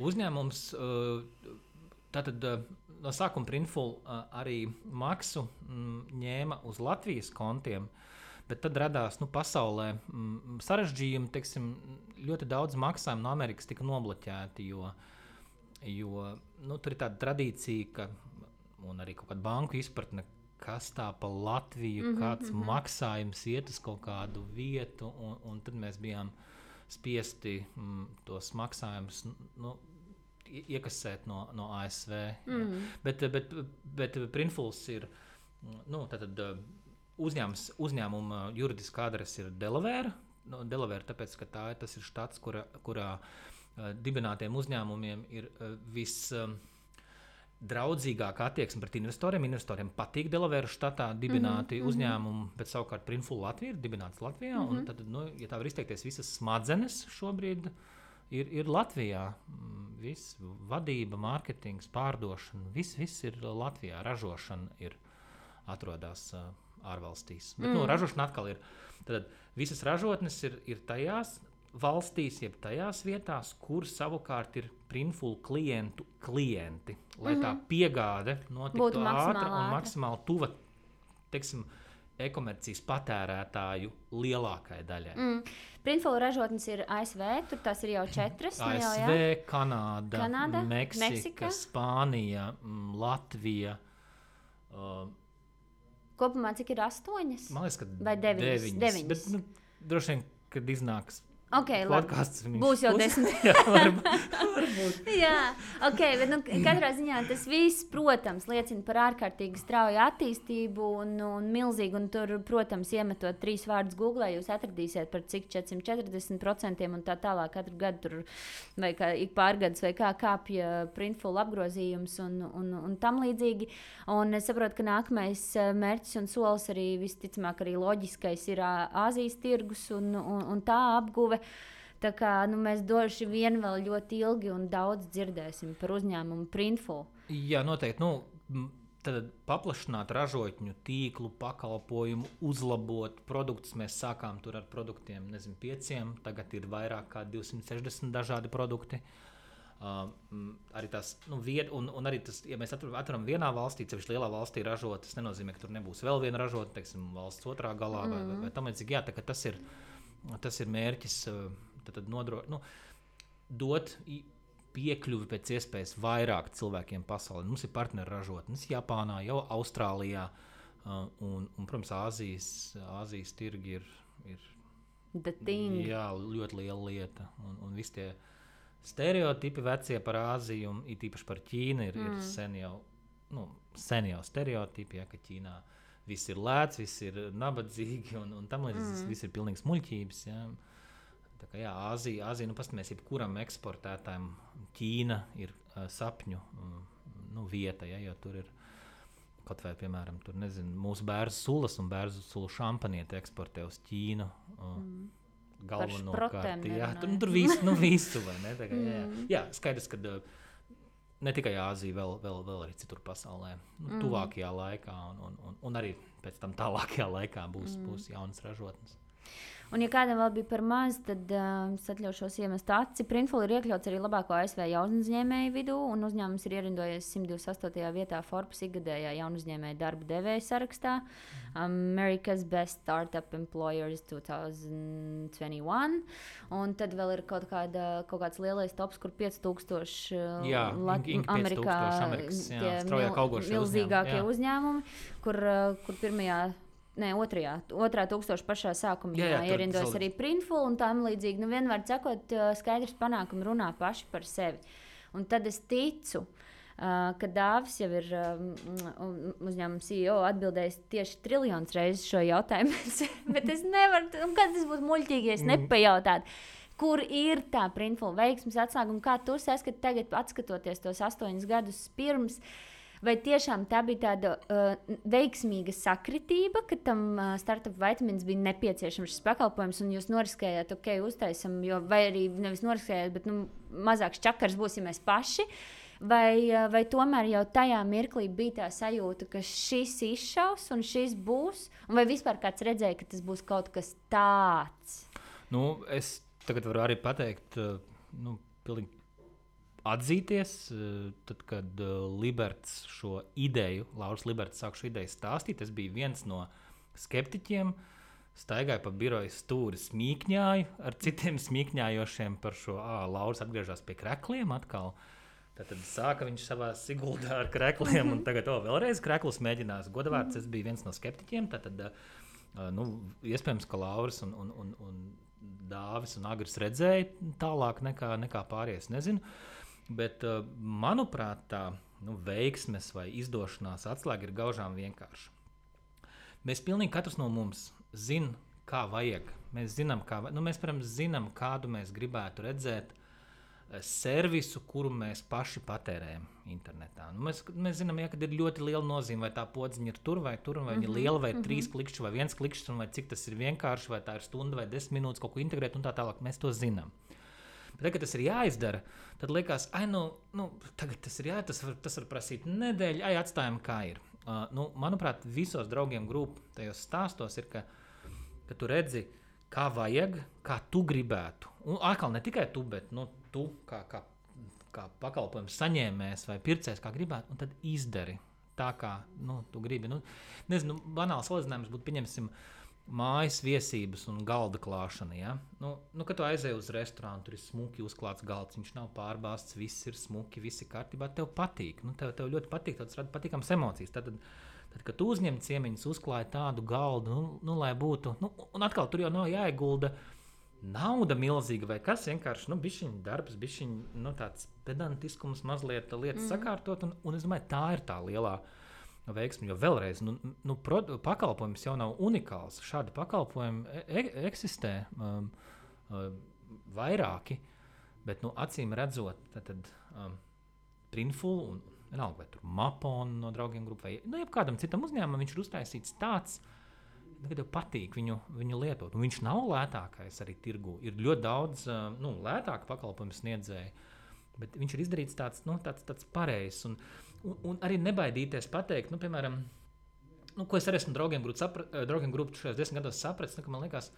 Uzņēmums, tātad no sākuma Printful arī maksu ņēma uz Latvijas kontiem, bet tad radās pasaulē sarežģījumi, teiksim, ļoti daudz maksājumu no Amerikas tika nobloķēti, jo tur ir tāda tradīcija, un arī kaut kāda banku izpratne, kas tā pa Latviju, kāds maksājums iet uz kaut kādu vietu, un tad mēs bijām spiesti tos maksājumus iekasēt no ASV. Bet Printfuls ir, tātad uzņēmuma juridiskā adrese ir Delaware. Delaware, tāpēc, ka tas ir štats, kurā dibinātiem uzņēmumiem ir draudzīgāka attieksme pret investoriem. Investoriem patīk Delaware štatā dibināti uzņēmumi, bet savukārt Printful Latvija ir dibināts Latvijā. Un tad, ja tā var izteikties, visas smadzenes šobrīd ir Latvijā. Viss vadība, mārketings, pārdošana, viss ir Latvijā. Ražošana atrodas ārvalstīs. Bet ražošana atkal ir. Tad visas ražotnes ir tajās valstīs, jeb tajās vietās, kur savukārt ir Printful klienti, lai tā piegāde notiktu ātra un maksimāli tuva, teiksim, e-komercijas patērētāju lielākai daļai. Printful ražotnes ir ASV, tur tās ir jau 4. ASV, Kanāda, Meksika, Spānija, Latvija. Kopumā cik ir 8? Man liekas, ka vai 9? Bet droši vien, kad iznāks Okay, podcasts. Būs jau 10. Jā, varbūt. Jā, okay, bet katrā ziņā tas viss, protams, liecina par ārkārtīgi strauju attīstību un milzīgu. Un tur, protams, iemetot 3 vārdus Google, jūs atradīsiet par cik 440% un tā tālāk katru gadu tur vai kā ik pārgadus vai kā kāpja Printful apgrozījums un tam līdzīgi. Un es saprotu, ka nākamais mērķis un solis arī visticamāk arī loģiskais ir Āzijas tirgus un tā apguve. Tā kā mēs droši vien vēl ļoti ilgi un daudz dzirdēsim par uzņēmumu Printful. Jā, noteikti. Tad paplašināt ražotņu tīklu, pakalpojumu, uzlabot produktus. Mēs sākām tur ar produktiem, 5, tagad ir vairāk kā 260 dažādi produkti. Arī tas, un arī tas, ja mēs atveram vienā valstī, sevišķi lielā valstī ražot, tas nenozīmē, ka tur nebūs vēl viena ražota, teiksim, valsts otrā galā vai tam līdzīgi. Jā, tā ka tas ir mērķis, tad dot piekļuvi pēc iespējas vairāk cilvēkiem pasaulē. Mums ir partneri ražotnes Japānā, jau Austrālijā, un protams, Āzijas tirgi ir jā, ļoti liela lieta. Un visi tie stereotipi vecie par Āziju, un it īpaši par Ķīnu, ir sen jau stereotipi, ja, ka Ķīnā viss ir lēts, viss ir nabadzīgi, un tam līdz viss ir pilnīgs muļķības. Ja. Tā kā jā, Āzija, pastamies, jebkuram eksportētājam Ķīna ir sapņu vieta, ja, jo tur ir kaut vai, piemēram, tur, mūsu bērzu sulas un bērzu sulu šampanieti eksportē uz Ķīnu. Galvenokārt, jā, tur visu, vai ne? Tā kā, jā, skaidrs, ka ne tikai Āzija, vēl arī citur pasaulē, tuvākajā laikā un arī pēc tam tālākajā laikā būs jaunas ražotnes. Un, ja kādam vēl bija par maz, tad es atļaušos iemest aci. Printful ir iekļauts arī labāko ASV jaunuzņēmēju vidū, un uzņēmums ir ierindojies 128. vietā Forbes ikgadējā jaunuzņēmēju darba devēja sarakstā. America's Best Startup Employers 2021. Un tad vēl ir kaut kāds lielais tops, kur 5000 Amerikā milzīgākie uzņēmumi, kur pirmajā. Otrā tūkstoša pašā sākumā ierindojas arī Printful un tam līdzīgi. Vienmēr sakot, skaidrs panākumi runā paši par sevi. Un tad es ticu, ka Dāvis jau ir uzņēmuma CEO atbildējis tieši 1 triljonu reizes šo jautājumu. Bet es nevaru, kad tas būtu muļķīgi, ja es nepajautātu. Kur ir tā Printful veiksmes atslēga un kā tu saskati tagad, atskatoties tos 8 gadus pirms? Vai tiešām tā bija tāda veiksmīga sakritība, ka tam startup vitamīns bija nepieciešams šis pakalpojums, un jūs noriskējāt, uztaisam, vai arī nevis noriskējāt, bet mazāks čakars būsim mēs paši, vai tomēr jau tajā mirklī bija tā sajūta, ka šis izšaus un šis būs, un vai vispār kāds redzēja, ka tas būs kaut kas tāds? Es tagad varu arī pateikt, pilnīgi atzīties, tad, kad Liberts šo ideju, Lauris Liberts sāk šo ideju stāstīt, es biju viens no skeptiķiem, staigāju pa biroju stūri, smīkņāju ar citiem smīkņājošiem par šo, Lauris atgriežas pie krekliem atkal. Tad sāka viņš savā Siguldā ar krekliem, un tagad vēlreiz kreklus mēģinās. Godavārds, es biju viens no skeptiķiem, tad, iespējams, ka Lauris un Dāvis un Agris redzēja tālāk nekā pārējais, nezinu. Bet, manuprāt, tā veiksmes vai izdošanās atslēga ir gaužām vienkārša. Mēs pilnīgi katrs no mums zinām, kā vajag. Mēs zinām, mēs, protams, zinām, kādu mēs gribētu redzēt servisu, kuru mēs paši patērējam internetā. Mēs zinām, ka ir ļoti liela nozīme, vai tā podziņa ir tur, vai viņa ir liela, vai 3 klikšķi, vai 1 klikšķis, vai cik tas ir vienkārši, vai tā ir stunda vai 10 minūtes kaut ko integrēt un tā tālāk. Mēs to zinām. Bet, kad tas ir jāizdara, tad liekas, tagad tas ir jāizdara, tas var prasīt nedēļu, atstājam, kā ir. Manuprāt, visos draugiem grupu tajos stāstos ir, ka tu redzi, kā vajag, kā tu gribētu. Un atkal ne tikai tu, bet tu kā pakalpojums saņēmējs vai pircējs, kā gribētu, un tad izdari tā, kā tu gribi. Nezinu, banāls salīdzinājums būtu, pieņemsim, mājas viesības un galda klāšana. Ja? Kad tu aizēji uz restorānu, tur ir smuki uzklāts galds, viņš nav pārbāzts, viss ir smuki, viss ir kārtībā, tev patīk. Tev ļoti patīk, tas rada patīkams emocijas. Tad, kad tu uzņem ciemiņus, uzklāji tādu galdu, lai būtu, un atkal tur jau nav jāiegulda nauda milzīga vai kas vienkārši, bišķiņ darbs, bišķiņ, tāds pedantiskums mazliet lietas sakārtot, un es domāju, tā ir tā lielā veiksme, jo vēlreiz, pakalpojums jau nav unikāls, šādi pakalpojumi eksistē vairāki, bet, acīm redzot, tad Printful un vienalga, vai tur Mapon no draugiem grupu, vai, jebkādam citam uzņēmumam viņš ir uztaisīts tāds, ka tev patīk viņu lietot. Un viņš nav lētākais arī tirgu. Ir ļoti daudz lētāku pakalpojumu sniedzēju, bet viņš ir izdarīts tāds pareizs. Un arī nebaidīties pateikt, piemēram, ko es arī esmu draugiem grupu šajos 10 gados sapratis, ka man liekas,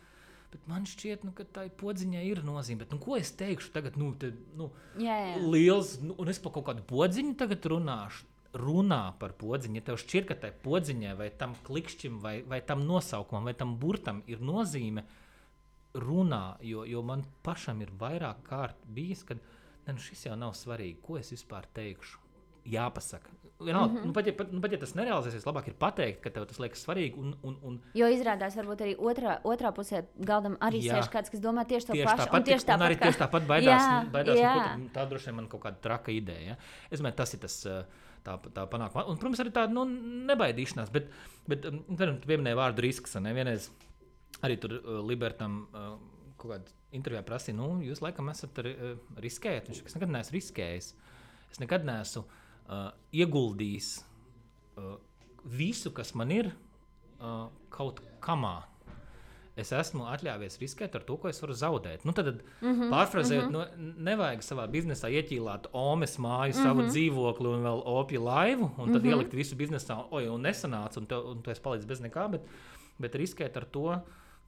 bet man šķiet, ka tai podziņai ir nozīme. Bet, ko es teikšu tagad, liels, un es par kaut kādu podziņu tagad runā par podziņu, ja tev šķiet, ka tai podziņai vai tam klikšķim vai tam nosaukumam vai tam burtam ir nozīme, runā, jo man pašam ir vairāk kārt bijis, kad šis jau nav svarīgi, ko es vispār teikšu. Jāpasaka. Pat ja tas nerealizēsies, labāk ir pateikt, ka tev tas liekas svarīgi. Jo izrādās, varbūt arī otrā pusē galdam arī sēž kāds, kas domā tieši to pašu. Un arī tieši tāpat baidās. Tā droši vien man kaut kāda traka ideja. Ja? Es domāju, tas ir tas tā panākuma. Un, protams, arī tāda nebaidīšanās. Bet tu pieminēji vārdu risks. Vienreiz arī tur Libertam kaut kādā intervijā prasīja, jūs laikam esat riskējat. Viņš es nekad neesmu riskējis. Es nekad neesmu ieguldījis visu, kas man ir, kaut kamā. Es esmu atļāvies riskēt ar to, ko es varu zaudēt. Tad pārfrazējot, nevajag savā biznesā ieķīlāt omes māju, savu dzīvokli un vēl opju laivu, un tad ielikt visu biznesā, un nesanāca, un tu esi palicis bez nekā, bet riskēt ar to,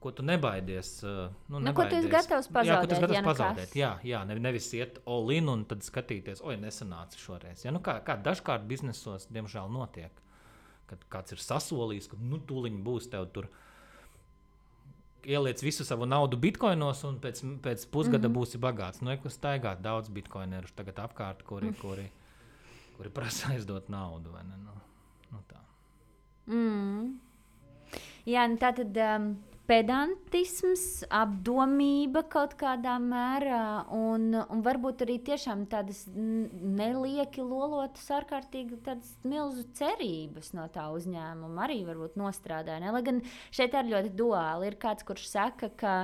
ko tu nebaidies. Ko tu esi gatavs pazaudēt? Jā, nevis iet all in un tad skatīties, nesanāca šoreiz. Ja, kā dažkārt biznesos, diemžēl, notiek, kad kāds ir sasolījis, ka tūliņ būs tev tur ieliec visu savu naudu bitkoinos un pēc pusgada būsi bagāts. Staigāt daudz bitkoinerus tagad apkārt, kuri prasa aizdot naudu. Vai ne? Tā. Jā, tātad pedantisms, apdomība kaut kādā mērā un varbūt arī tiešām tādas nelieki lolotas ārkārtīgi tādas milzu cerības no tā uzņēmuma arī varbūt nostrādāja. Ne? Lai gan šeit ir ļoti duāli. Ir kāds, kurš saka, ka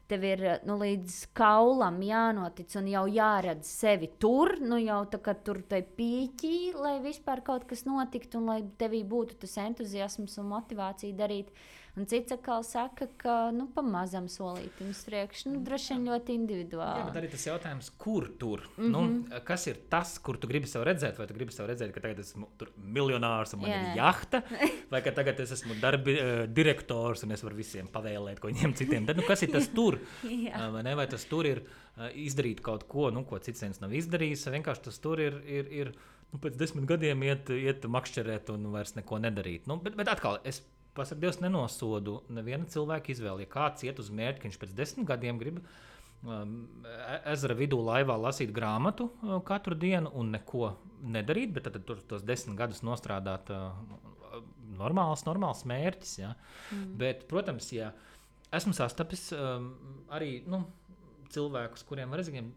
tev ir līdz kaulam jānotic un jau jāredz sevi tur, jau tā kā tur tai pīķī, lai vispār kaut kas notiktu un lai tevī būtu tas entuziasms un motivācija darīt. Un cits atkal saka, ka pamazam solītim uz priekšu, droši vien ļoti individuāli. Jā, bet arī tas jautājums, kur tur? Kas ir tas, kur tu gribi sev redzēt? Vai tu gribi sev redzēt, ka tagad esmu miljonārs un man ir jahta? Vai ka tagad es esmu direktors un es varu visiem pavēlēt, ko viņiem citiem? Tad, kas ir tas tur? Vai tas tur ir izdarīt kaut ko, ko cits viens nav izdarījis? Vienkārši tas tur ir pēc 10 gadiem iet makšķerēt un vairs neko nedarīt. Bet atkal, es pasaka, Dievs nenosodu neviena cilvēka izvēli. Ja kāds iet uz mērķi, ka viņš pēc 10 gadiem grib ezera vidū laivā lasīt grāmatu katru dienu un neko nedarīt, bet tad tos 10 gadus nostrādāt normāls mērķis. Ja? Bet, protams, ja esmu sastapis arī cilvēkus, kuriem var redzēt,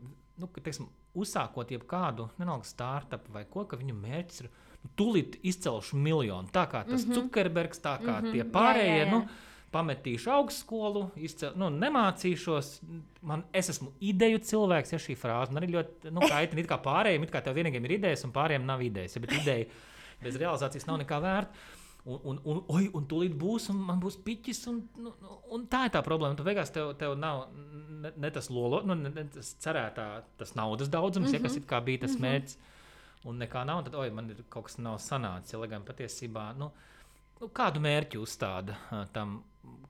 teiksim, uzsākot jebkādu startup vai ko, ka viņu mērķis ir tūlīt izcelšu miljonu. Tā kā tas Zuckerbergs, tā kā tie pārējie, pametīšu augstskolu, nemācīšos. Es esmu ideju cilvēks, ja šī frāze. Man arī ļoti kaitina, it kā pārējiem, it kā tev vienīgiem ir idejas un pārējiem nav idejas. Ja, bet ideja bez realizācijas nav nekā vērta. Un tūlīt būs, un man būs piķis, un tā ir tā problēma. Tu beigās tev nav ne tas ne tas cerētā, tas naudas daudzums, ja, kas it kā bija tas mērķis. Un nekā nav, tad man ir kaut kas nav sanācis. Ja, lai gan patiesībā, kādu mērķi uzstāda tam,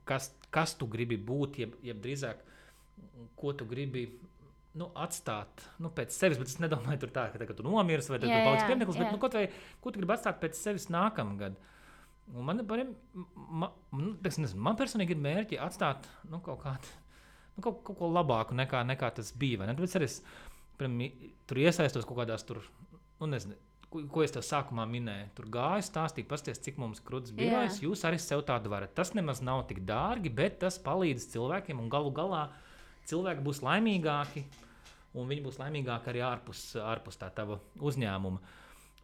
kas tu gribi būt, jeb drīzāk, ko tu gribi atstāt pēc sevis. Bet es nedomāju tur tā, ka tagad tu nomirs vai tu paliks piemineklis, bet kaut vai, ko tu gribi atstāt pēc sevis nākamgad. Un man personīgi ir mērķi atstāt kaut ko labāku nekā tas bija. Tāpēc arī es tur iesaistos kaut kādās tur, nezinu, ko es tev sākumā minēju. Tur gāju, stāstīju, pasties, cik mums krūtis birojas, jūs arī sev tādu varat. Tas nemaz nav tik dārgi, bet tas palīdz cilvēkiem un galu galā cilvēki būs laimīgāki, un viņi būs laimīgāki arī ārpus tā tava uzņēmuma.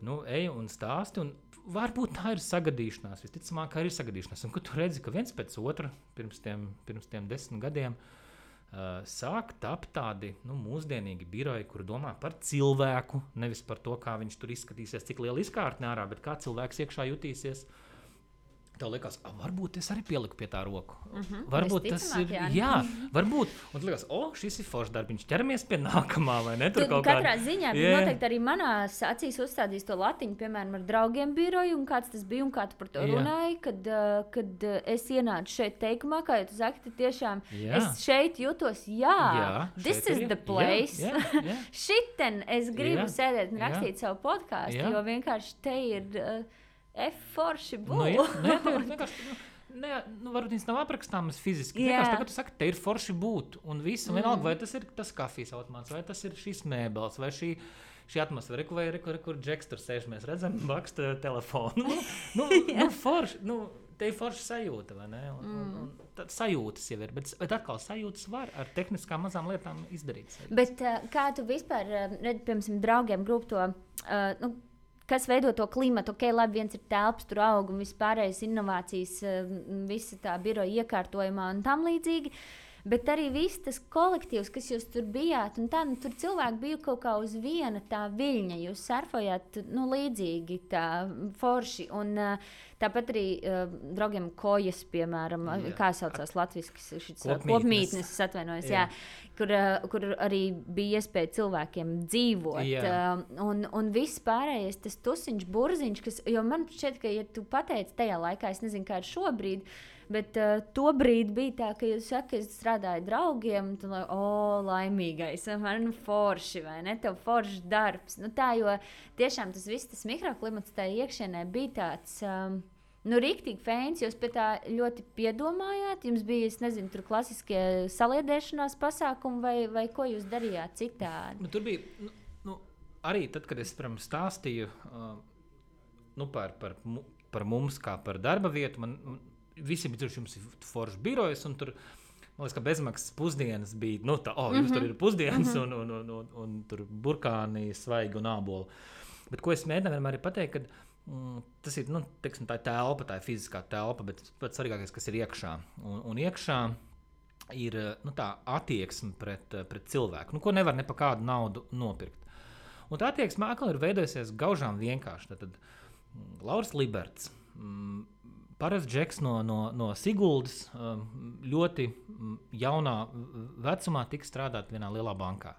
Nu, ej un stāsti, un varbūt tā ir sagadīšanās, visticamāk, arī ir sagadīšanās. Un, kad tu redzi, ka viens pēc otra pirms tiem 10 gadiem sāk tapt tādi mūsdienīgi biroji, kuri domā par cilvēku, nevis par to, kā viņš tur izskatīsies, cik liela izkārtne ārā, bet kā cilvēks iekšā jutīsies. Tev liekas, varbūt es arī pieliku pie tā roku. Varbūt tas ir, varbūt. Un tu liekas, šis ir foršs darbiņš, ķeramies pie nākamā, vai ne? Tur katrā ziņā noteikti arī manās acīs uzstādīs to latiņu, piemēram, ar draugiem biroju, un kāds tas bija, un kā tu par to runāji, kad es ienācu šeit teikumā, kā jau tu saki, tad tiešām es šeit jūtos, this is the place. Šiten es gribu sēdēt un rakstīt savu podcastu, jo vienkārši te ir... forši būt. Varbūt viņas nav aprakstāmas fiziski. Vienkārši tagad tu saki, te ir forši būt. Un visu, vienalga, vai tas ir tas kafijas automāts, vai tas ir šīs mēbeles, vai šī atmosfēra, vai kur Džeks tur sēž, mēs redzam, baksta telefonu. Forši, te ir forši sajūta, vai ne? Un tad sajūtas jau ir, bet atkal sajūtas var ar tehniskām mazām lietām izdarīt. Bet kā tu vispār redzi, piemēram, draugiem grupu to, kas veido to klimatu, labi, viens ir telpas, tur aug un vispārējais inovācijas, visa tā biroja iekārtojumā un tam līdzīgi, bet arī viss tas kolektīvs, kas jūs tur bijāt, un tā, tur cilvēki bija kaut kā uz viena tā viļņa, jūs surfojāt, līdzīgi tā forši, un tāpat arī draugiem kojas, piemēram, kā saucās latviski, kopmītnes, es atvainojos, kur arī bija iespēja cilvēkiem dzīvot, un viss pārējais, tas tusiņš, burziņš, jo man šķiet, ka, ja tu pateici tajā laikā, es nezinu, kā ir šobrīd, bet to brīdi bija tā, ka jūs saka, ka es strādāju draugiem, un tu laimīgais, man forši, vai ne, tev foršs darbs. Tā, jo tiešām tas viss, tas mikroklimats tā iekšienē bija tāds, riktīgi fēns, jūs pie tā ļoti piedomājāt, jums bija, es nezinu, tur klasiskie saliedēšanās pasākumi, vai ko jūs darījāt citādi? Tur bija, arī tad, kad es, stāstīju par mums kā par darba vietu, man visi bija tur, jums ir foršs birojas, un tur, man liekas, ka bezmaksas pusdienas bija, jums tur ir pusdienas, un tur burkāni, svaigi un āboli. Bet ko es mēģināju vienmēr pateikt, ka tas ir, teiksim, tā ir telpa, tā ir fiziskā telpa, bet pats svarīgākais, kas ir iekšā. Un iekšā ir, tā attieksme pret cilvēku, ko nevar ne pa kādu naudu nopirkt. Un tā attieksme atkal ir veidojusies gaužām vienkārši. Tad Lauris Liberts, parasts Džeks no Siguldas, ļoti jaunā vecumā tika strādāt vienā lielā bankā.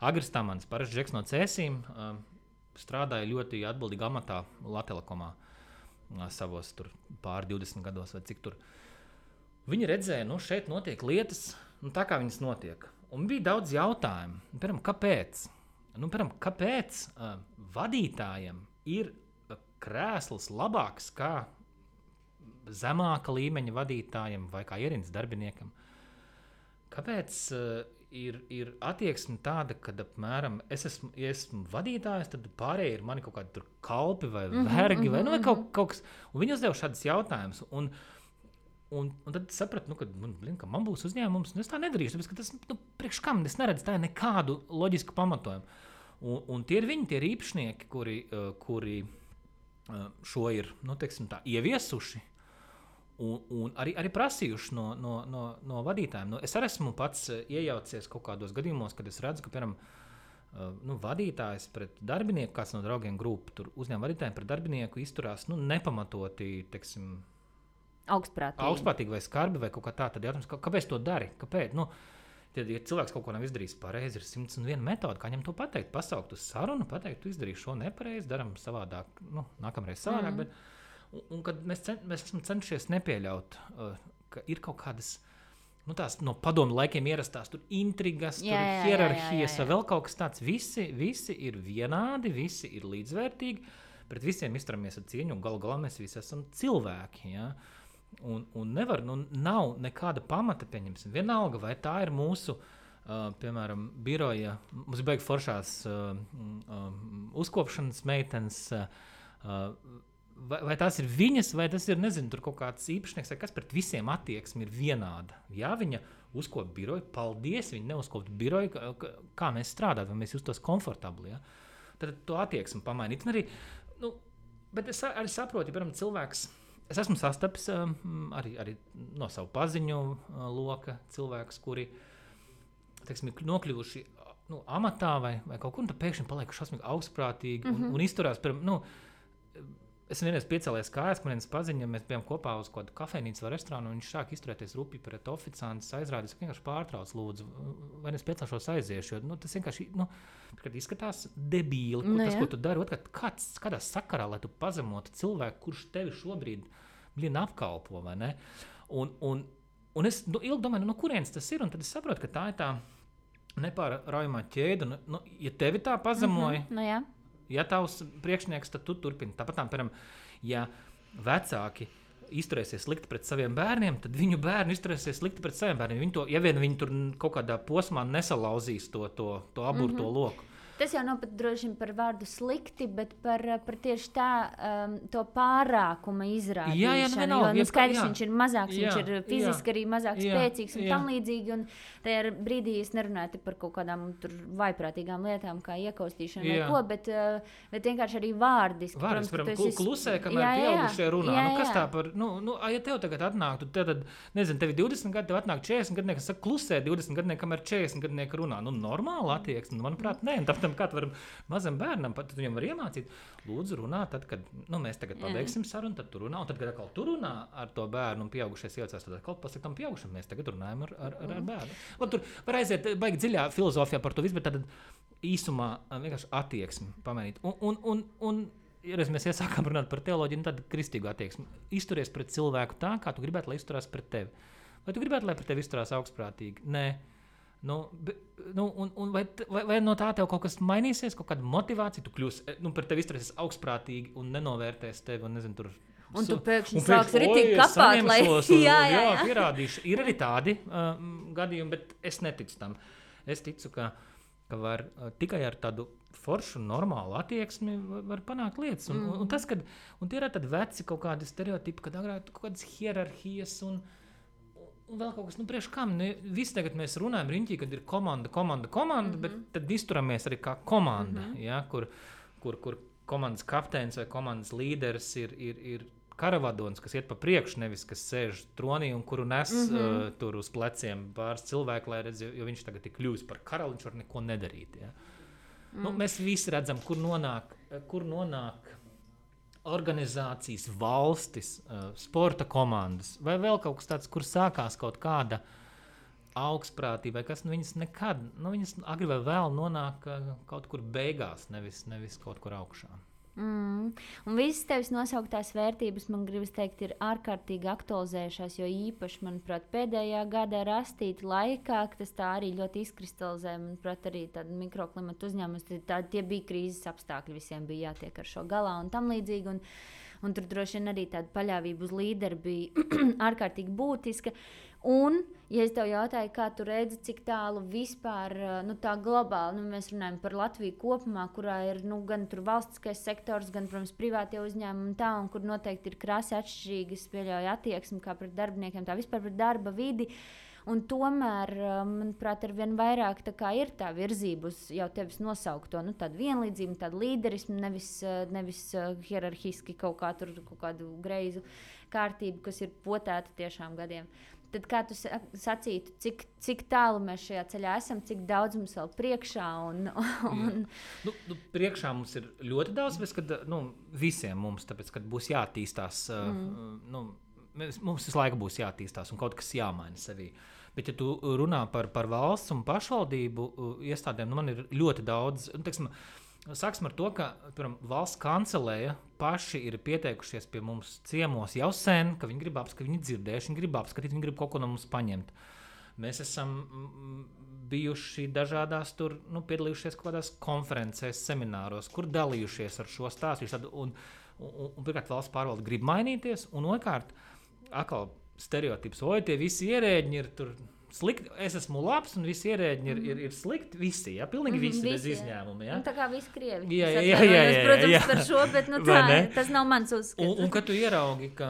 Agris Tamans, parasts Džeks no Cēsīm, strādāja ļoti atbildīgā amatā Latelekomā savos tur pār 20 gados vai cik tur. Viņi redzēja, šeit notiek lietas, tā kā viņas notiek. Un bija daudz jautājumu. Piemēram, kāpēc vadītājiem ir krēsls labāks kā zemāka līmeņa vadītājiem vai kā ierīnas darbiniekam? Kāpēc ir attieksme tāda, ka apmēram es esmu vadītājs, tad pārējie ir mani kaut kādi tur kalpi vai vergi vai kaut kas. Un viņi uzdeva šādus jautājumus. Un tad sapratu, ka man būs uzņēmums, un es tā nedarīšu, tāpēc, ka tas, priekš kam, es neredzu tā nekādu loģisku pamatojumu. Un tie ir viņi, tie ir īpašnieki, kuri šo ir, teiksim tā, ieviesuši un arī prasījuši no vadītājiem. Es arī esmu pats iejaucies kaut kādos gadījumos, kad es redzu, ka, piemēram, vadītājs pret darbinieku, kāds no draugiem grupu, tur uzņēmuma vadītājiem pret darbinieku izturās, nepamatoti, teiksim, augstprātīgi vai skarbi vai kaut kā tā, tad jautājums, kāpēc to dari? Kāpēc? Ja cilvēks kaut ko nav izdarījis pareizi, ir 101 metode, kā viņam to pateikt, pasaukt uz sarunu, pateikt, tu izdarīji šo nepareizi, daram savādāk, nākamreiz savādāk, bet un kad mēs esam cenšies nepieļaut, ka ir kaut kādas, tās no padomu laikiem ierastās tur intrigas, tur hierarhijas vai vēl kaut kas tāds. Visi ir vienādi, visi ir līdzvērtīgi, pret visiem izturamies ar cieņu, un galu galā mēs visi esam cilvēki, ja? Un nevar, nav nekāda pamata, pieņemsim, vienalga, vai tā ir mūsu, piemēram, biroja, mums beig foršās uzkopšanas meitenes, vai tās ir viņas, vai tas ir, nezinu, tur kaut kāds īpašnieks, vai kas pret visiem attieksmi ir vienāda. Ja viņa uzkopt biroju, paldies, viņi neuzkopt biroju, kā mēs strādājam, vai mēs justos komfortabli. Ja? Tad to attieksmi pamainīt. Un arī, bet es arī saprotu, ja, piemēram, cilvēks, es esmu sastapis arī no savu paziņu loka cilvēkus, kuri, teiksim, nokļuvuši amatā vai kaut kur, un tad pēkšņi paliek šausmīgi augstprātīgi un izturās, piemēram, es vienreiz piecēlējos kājās, man viens paziņa, mēs bijām kopā uz kādu kafejnīcu vai restorānu, un viņš sāk izturēties rupi pret oficiantus, aizrādījis, vienkārši pārtrauc, lūdzu, vai es piecēlšos aiziešu, jo tas vienkārši izskatās debīli, tas, ko tu dari, kādā sakarā, lai tu pazemotu cilvēku, kurš tevi šobrīd apkalpo, vai ne? Un es ilgi domāju, no kurienes tas ir, un tad es saprotu, ka tā ir tā nepārraujamā ķēde, ja tevi tā pazemoja, jā. Ja tavs priekšnieks, tad tu turpini. Tāpat, piemēram, ja vecāki izturēsies slikti pret saviem bērniem, tad viņu bērni izturēsies slikti pret saviem bērniem. Ja vien viņi tur kaut kādā posmā nesalauzīs to aburto loku. Tas jau nav pat droši par vārdu slikti, bet par tieši tā to pārākuma izrādīšanu. Jo skaidrs, viņš ir mazāks, viņš ir fiziski arī mazāk spēcīgs un tam līdzīgi. Un tajā brīdī es nerunāju par kaut kādām tur vaiprātīgām lietām, kā iekaustīšana vai ko, bet vienkārši arī vārdiski. Vārdiski, klusē, kamēr pieaugušie runā. Kas tā par, ja tev tagad atnāktu, tad, nezinu, tev 20 gadi, tev atnāk 40 gadnieki, kas saka klusē 20 gadnieki, kamēr 40 gadnieki runā. Normāli attieksme, manuprāt, nē. Kā tu vari mazam bērnam, tad viņam var iemācīt, lūdzu runā, tad, kad mēs tagad pabeigsim sarunu, tad tu runā, un tad, kad atkal tu runā ar to bērnu un pieaugušies iecās, tad atkal pasaka tam pieaugušam, mēs tagad runājam ar bērnu. Tur var aiziet baigi dziļā filozofijā par to visu, bet tad īsumā vienkārši attieksmi pamainīt. Un ja mēs iesākām runāt par teoloģiju, tad kristīgu attieksmi. Izturies pret cilvēku tā, kā tu gribētu, lai izturās pret tevi. Vai tu gribētu, lai pret tevi izturās augstprātīgi? Nē. Vai no tā tev kaut kas mainīsies, kaut kāda motivācija, tu kļūsi, par tevi izturēsies augstprātīgi un nenovērtēs tevi, un nezinu, tur... Un tu pēkšņi sāks ritīgi kapāt, lai... Jā, pierādīšu. Ir arī tādi gadījumi, bet es neticu tam. Es ticu, ka var tikai ar tādu foršu, normālu attieksmi var panākt lietas. Un tas, kad... Un tie ir tādi veci kaut kādi stereotipi, kad agrāk kaut kādas hierarhijas un vēl kaut kas, priekš kam, visi tagad mēs runājam riņķī, kad ir komanda, bet tad izturamies arī kā komanda, ja, kur komandas kapteinis vai komandas līderis ir karavadons, kas iet pa priekšu, nevis kas sēž tronī un kuru nes tur uz pleciem pāris cilvēku, lai redz, jo viņš tagad ir kļuvis par karali, viņš var neko nedarīt. Ja. Mēs visi redzam, kur nonāk organizācijas, valstis, sporta komandas, vai vēl kaut kas tāds, kur sākās kaut kāda augstprātība, vai kas, viņas nekad, viņas agri vai vēl nonāk kaut kur beigās, nevis kaut kur augšā. Un visas tevis nosauktās vērtības, man gribas teikt, ir ārkārtīgi aktualizējušās, jo īpaši, manuprāt, pēdējā gada rastīta laikā, tas tā arī ļoti izkristalizē, manuprāt, arī tāda mikroklimata uzņēmums, tie bija krīzes apstākļi, visiem bija jātiek ar šo galā un tam līdzīgi, un tur droši vien arī tāda paļāvība uz līderi bija ārkārtīgi būtiska. Un, ja es tev jautāju, kā tu redzi, cik tālu vispār tā globāli, mēs runājam par Latviju kopumā, kurā ir gan tur valstiskais sektors, gan, protams, privātie uzņēmumi un kur noteikti ir krasi atšķirīgas, pieļauj attieksmi kā pret darbiniekiem, tā vispār pret darba vidi. Un tomēr, manuprāt, arvien vairāk tā kā ir tā virzība uz jau tevis nosaukto, tādu vienlīdzību, tādu līderismu, nevis hierarhiski kaut kādu greizu kārtību, kas ir potēta tiešām gadiem. Tad kā tu sacītu, cik tālu mēs šajā ceļā esam, cik daudz mums vēl priekšā? Priekšā mums ir ļoti daudz, bet visiem mums, tāpēc, kad būs jāattīstās, mums visu laiku būs jāattīstās un kaut kas jāmaina sevī. Bet, ja tu runā par valsts un pašvaldību iestādēm, man ir ļoti daudz, sāksim ar to, ka valsts kancelēja paši ir pieteikušies pie mums ciemos jau sen, ka viņi grib apskatīt, viņi dzirdējuši, viņi grib apskatīt, viņi grib kaut ko no mums paņemt. Mēs esam bijuši dažādās tur, piedalījušies kaut kādās konferencēs, semināros, kur dalījušies ar šo stāstu. Un pirmkārt, valsts pārvalde grib mainīties, un otrkārt, atkal stereotips, tie visi ierēģi ir tur slikti, es esmu labs, un visi ierēģi ir slikti, visi, pilnīgi visi, bez izņēmuma. Ja? Tā kā visi krievi. Jā, protams, par šo, bet tas nav mans uzskats. Un kad tu ieraugi, ka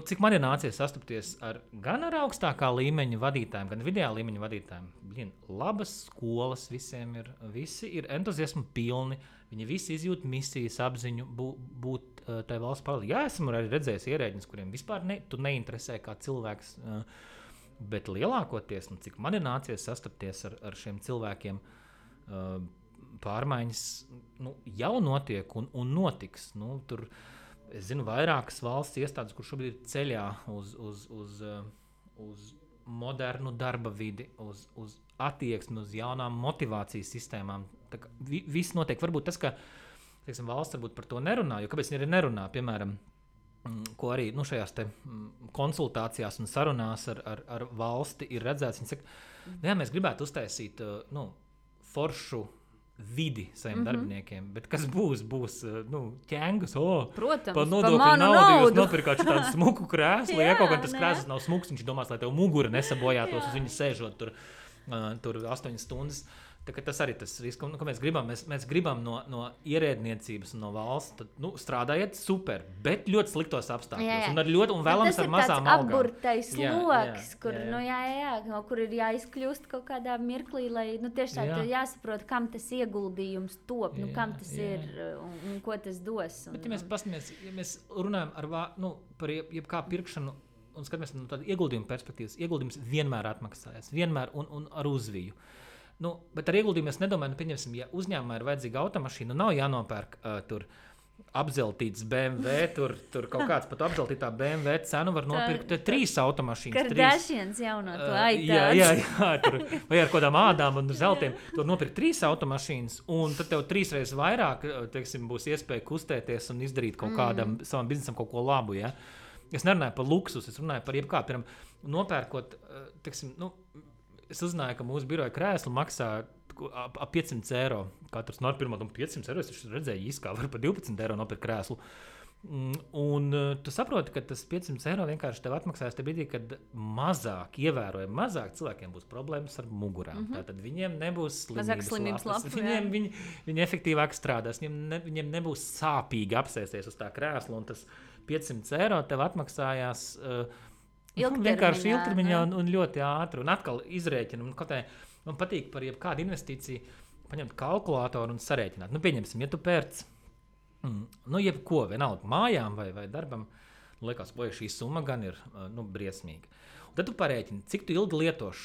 cik man ir nācies sastapties gan ar augstākā līmeņa vadītājiem, gan vidējā līmeņa vadītājiem. Labas skolas visiem ir, visi ir entuziasmu pilni, viņi visi izjūt misijas apziņu būt tai valsts pārvaldē. Jā, esmu arī redzējis ierēģiņus, kuriem vispār tu neinteresē kā cilvēks, bet lielākoties, cik man ir nācies sastapties ar šiem cilvēkiem, pārmaiņas jau notiek un notiks. Tur es zinu vairākas valsts iestādes, kur šobrīd ir ceļā uz modernu darba vidi, uz attieksmi, uz jaunām motivācijas sistēmām. Viss notiek. Varbūt tas, ka valsts varbūt par to nerunā, jo kāpēc viņi arī nerunā, piemēram, ko arī šajās te konsultācijās un sarunās ar valsti ir redzēts. Viņi saka, jā, mēs gribētu uztaisīt foršu vidi saviem darbiniekiem, bet kas būs ķengus, protams, par nodokļu naudu jūs nopirkāt tādu smuku krēslu, ja kaut gan tas krēsls nav smuks, viņš domās, lai tev mugura nesabojātos uz viņu sēžot tur 8 stundas. Tas arī tas risks, ko mēs gribam. Mēs gribam no ierēdniecības un no valsts, tad, strādājiet super, bet ļoti sliktos apstākļos. Un vēlams ar mazām algām. Tas ir apburtais loks, kur ir jāizkļūst kaut kādā mirklī, lai tiešām jāsaprot, kam tas ieguldījums top, kam tas ir un ko tas dos. Bet, ja mēs runājam par jebkā pirkšanu un skatāmies no tāda ieguldījuma perspektīvas, ieguldījums vienmēr atmaksājas, vienmēr un ar uzviju. Bet ar ieguldījumu es nedomāju, pieņemsim, ja uzņēmumā ir vajadzīga automašīna, nav jānopērk tur apzeltīts BMW, tur kaut kāds pat apzeltītā BMW cenu var nopirkt 3 automašīnas. Kardashians jauno to aitāds. Jā, tur vai ar kādām ādām un zeltiem. Tur nopirkt 3 automašīnas, un tad tev 3 reizes vairāk, būs iespēja kustēties un izdarīt kaut kādam savam biznesam kaut ko labu, ja? Es nerunāju par luksus, es runāju par jebkā, piemēram, nopērkot, es uzzināju, ka mūsu biroja krēslu maksā ap 500 eiro. Katrs pirmā 500 eiro, es redzēju īskā, var par 12 eiro nopirkt krēslu. Un tu saproti, ka tas 500 eiro vienkārši tev atmaksājas te brīdī, kad ievērojami mazāk cilvēkiem būs problēmas ar mugurām. Tātad viņiem nebūs slimības lapas. Viņi efektīvāk strādās, viņiem nebūs sāpīgi apsēsties uz tā krēsla, un tas 500 eiro tev atmaksājās vienkārši ilgtermiņā un ļoti ātri. Un atkal izrēķinam. Man patīk par jebkādu investīciju paņemt kalkulātoru un sarēķināt. Pieņemsim, ja tu pērc jebko, vienalga mājām vai darbam, liekas, šī summa gan ir briesmīga. Un tad tu parēķini, cik tu ilgi lietos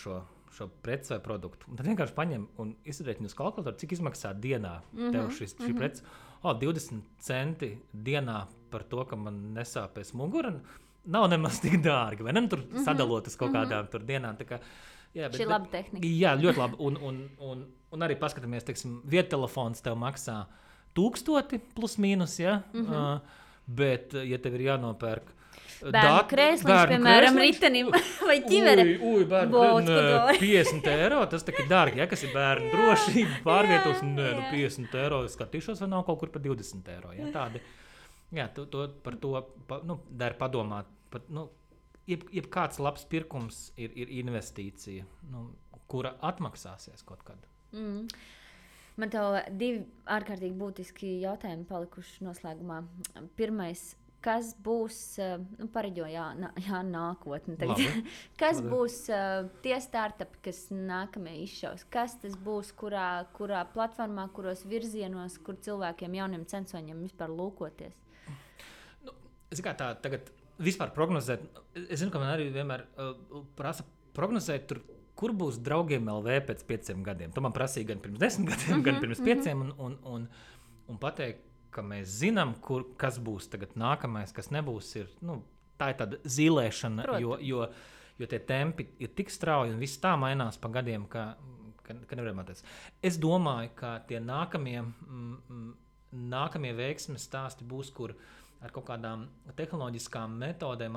šo preci vai produktu. Un tad vienkārši paņem un izrēķini uz kalkulātoru, cik izmaksā dienā tev šī preci. 20 centi dienā par to, ka man nesāpēs mugura. Nav nemaz tik dārgi, vai ne? Tur sadalot uz kaut kādām tur dienām. Šī ir laba tehnika. Jā, ļoti labi. Un arī paskatāmies, viedtelefons tev maksā 1000 plus mīnus, ja? Bet, ja tev ir jānopērk bērnu krēsliņš, piemēram, ritenim vai ķivere. Bērnu 50 eiro, tas tā ir dārgi, ja? Kas ir bērnu drošība, pārvietošana, 50 eiro, skatīšos, vai nav kaut kur par 20 eiro, ja? Tādi. Jā, par to der padomāt. Jebkāds labs pirkums ir investīcija, kura atmaksāsies kaut kad. Man tev 2 ārkārtīgi būtiski jautājumi palikuši noslēgumā. Pirmais, kas būs, pareģo, nākotne tagad. Kas būs tie startupi, kas nākamie izšaus? Kas tas būs, kurā platformā, kuros virzienos, kur cilvēkiem, jauniem censoņiem vispār lūkoties? Es kā tā tagad vispār prognozēt, es zinu, ka man arī vienmēr prasa prognozēt tur, kur būs draugiem LV pēc 5 gadiem. To man prasīja gan pirms 10 gadiem, gan pirms 5 un pateikt, ka mēs zinām, kas būs tagad nākamais, kas nebūs, tā ir tāda zīlēšana, jo tie tempi ir tik strauji un viss tā mainās pa gadiem, ka nevaram atrast. Es domāju, ka tie nākamie veiksmes stāsti būs, kur ar kaut kādām tehnoloģiskām metodēm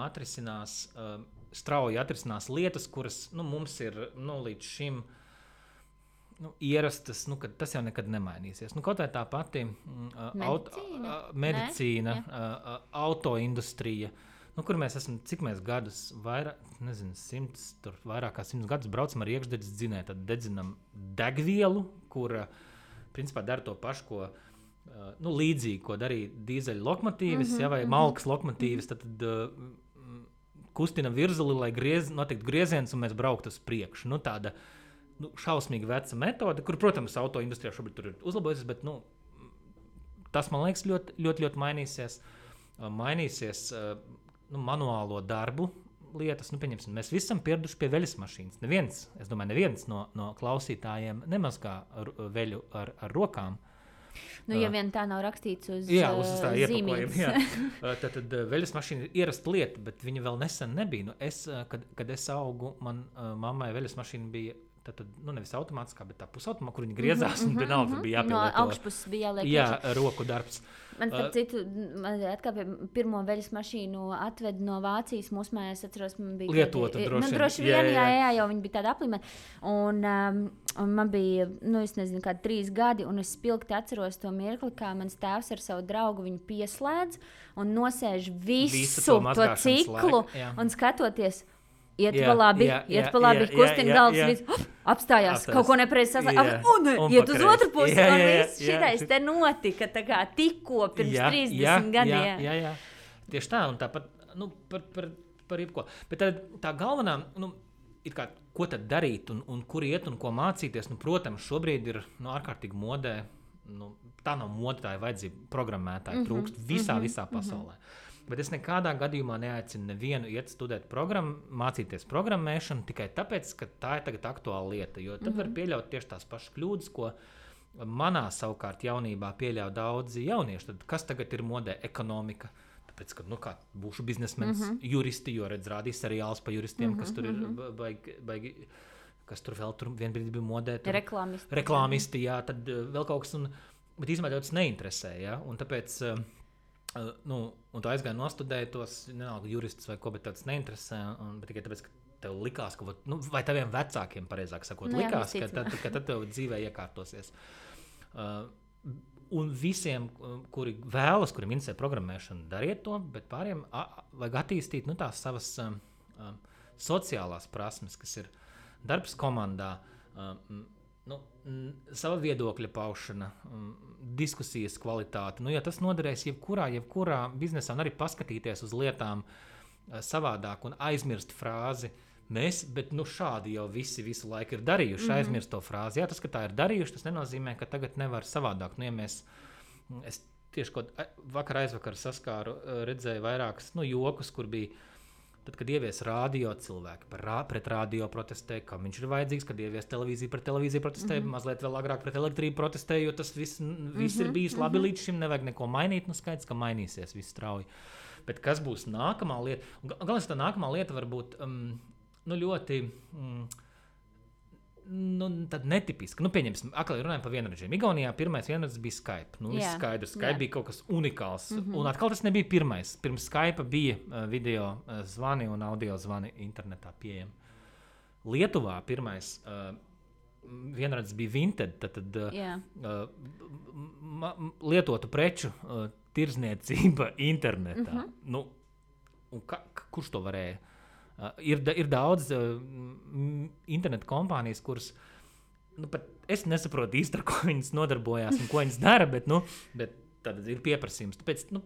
strauji atrisinās lietas, kuras mums ir līdz šim ierastas, ka tas jau nekad nemainīsies. Kaut vai tā pati medicīna, autoindustrija, kur mēs esam, cik mēs gadus, vairāk, nezinu, 100, vairāk kā 100 gadus braucam ar iekšdedzes dzinēju, tad dedzinam degvielu, kura principā dara to pašu, ko līdzīgi, ko darīja dīzeļu lokomotīvas, vai malkas lokomotīvas, tad kustina virzuli, lai notiktu grieziens un mēs brauktu uz priekšu. Nu, tāda šausmīgi veca metode, kur, protams, auto industrijā šobrīd tur ir uzlabojusies, bet tas, man liekas, ļoti mainīsies. Mainīsies manuālo darbu lietas. Pieņemsim, mēs visi esam pieraduši pie veļas mašīnas. Neviens no klausītājiem nemazgā veļu ar rokām. Ja vien tā nav rakstīts uz zīmītes. Tad veļas mašīna ir ierasta lieta, bet viņa vēl nesen nebija. Kad es augu, man mammai veļas mašīna bija nevis automātiskā, bet tā pusautomātiskā, kur viņi griezās, un vienalga bija jāpielieto. No augšpuses bija jāliek. Jā, roku darbs. Man starp citu, pirmo veļas mašīnu atved no Vācijas. Mūsu mājās, atceros, man bija lietota droši vien. Jā, jau viņi bija tāda aplimēta. Un man bija, es nezinu, kādi 3 gadi, un es spilgti atceros to mirkli, kā mans tēvs ar savu draugu viņu pieslēdz un nosēž visu to ciklu un skatoties. Iet pa labi, kustina galvas, apstājās, kaut ko nepareizi saslēgt, iet uz otru pusi, un viss šitais te notika tikko pirms 30 gadiem. Jā. Tieši tā, un tāpat par jebko. Bet tā galvenā, ko tad darīt un kur iet un ko mācīties, protams, šobrīd ir ārkārtīgi modē, tā nav mode, tā ir vajadzība programmētāji trūkst visā pasaulē. Bet es nekādā gadījumā neaicinu nevienu iet studēt mācīties programmēšanu tikai tāpēc, ka tā ir tagad aktuāla lieta. Jo tad var pieļaut tieši tās pašas kļūdas, ko manā savukārt jaunībā pieļauj daudzi jaunieši. Tad kas tagad ir modē? Ekonomika. Tāpēc, ka būšu biznesmenis, juristi, jo rādīs seriāls par juristiem, kas tur ir baigi, kas tur vēl vienbrīd bija modē. Reklāmisti, jā, tad vēl kaut kas. Bet īstenībā tas neinteresē, jā, un tāpēc... un tu aizgāji nostudēji tos, nenalga juristus vai ko, bet tāds neinteresē, bet tikai tāpēc, ka tev likās, vai taviem vecākiem, pareizāk sakot, likās, ka tad tev dzīvē iekārtosies. Un visiem, kuri vēlas, kuriem interesē programmēšana, dariet to, bet pāriem vajag attīstīt tās savas sociālās prasmes, kas ir darbs komandā, sava viedokļa paušana, diskusijas kvalitāte. Ja tas noderēs jebkurā biznesā, un arī paskatīties uz lietām savādāk un aizmirst frāzi mēs, bet šādi jau visu laiku ir darījuši, aizmirst to frāzi. Jā, tas, ka tā ir darījuši, tas nenozīmē, ka tagad nevar savādāk. Es tieši aizvakar saskāru, redzēju vairākas jokus, kur bija tad, kad ievies radio cilvēki pret radio protestēja, kam viņš ir vajadzīgs, kad ievies televīziju pret televīziju protestēja, mazliet vēl agrāk pret elektrību protestēja, jo tas viss ir bijis labi līdz šim, nevajag neko mainīt, skaidrs, ka mainīsies viss strauji. Bet kas būs nākamā lieta? Galvenais, tā nākamā lieta var būt ļoti tad netipiska. Pieņemsim, atkal runājam par vienradžiem. Igaunijā pirmais vienradžs bija Skype. Skaidrs, Skype bija kaut kas unikāls. Un atkal tas nebija pirmais. Pirms Skype bija video zvani un audio zvani internetā pieejami. Lietuvā pirmais vienradžs bija Vinted, tad lietotu preču tirzniecība internetā. Kurš to varēja? Ir daudz internetu kompānijas, kuras pat es nesaprotu īsti, ar ko viņas nodarbojās un ko viņas dara, bet tad ir pieprasījums. Tāpēc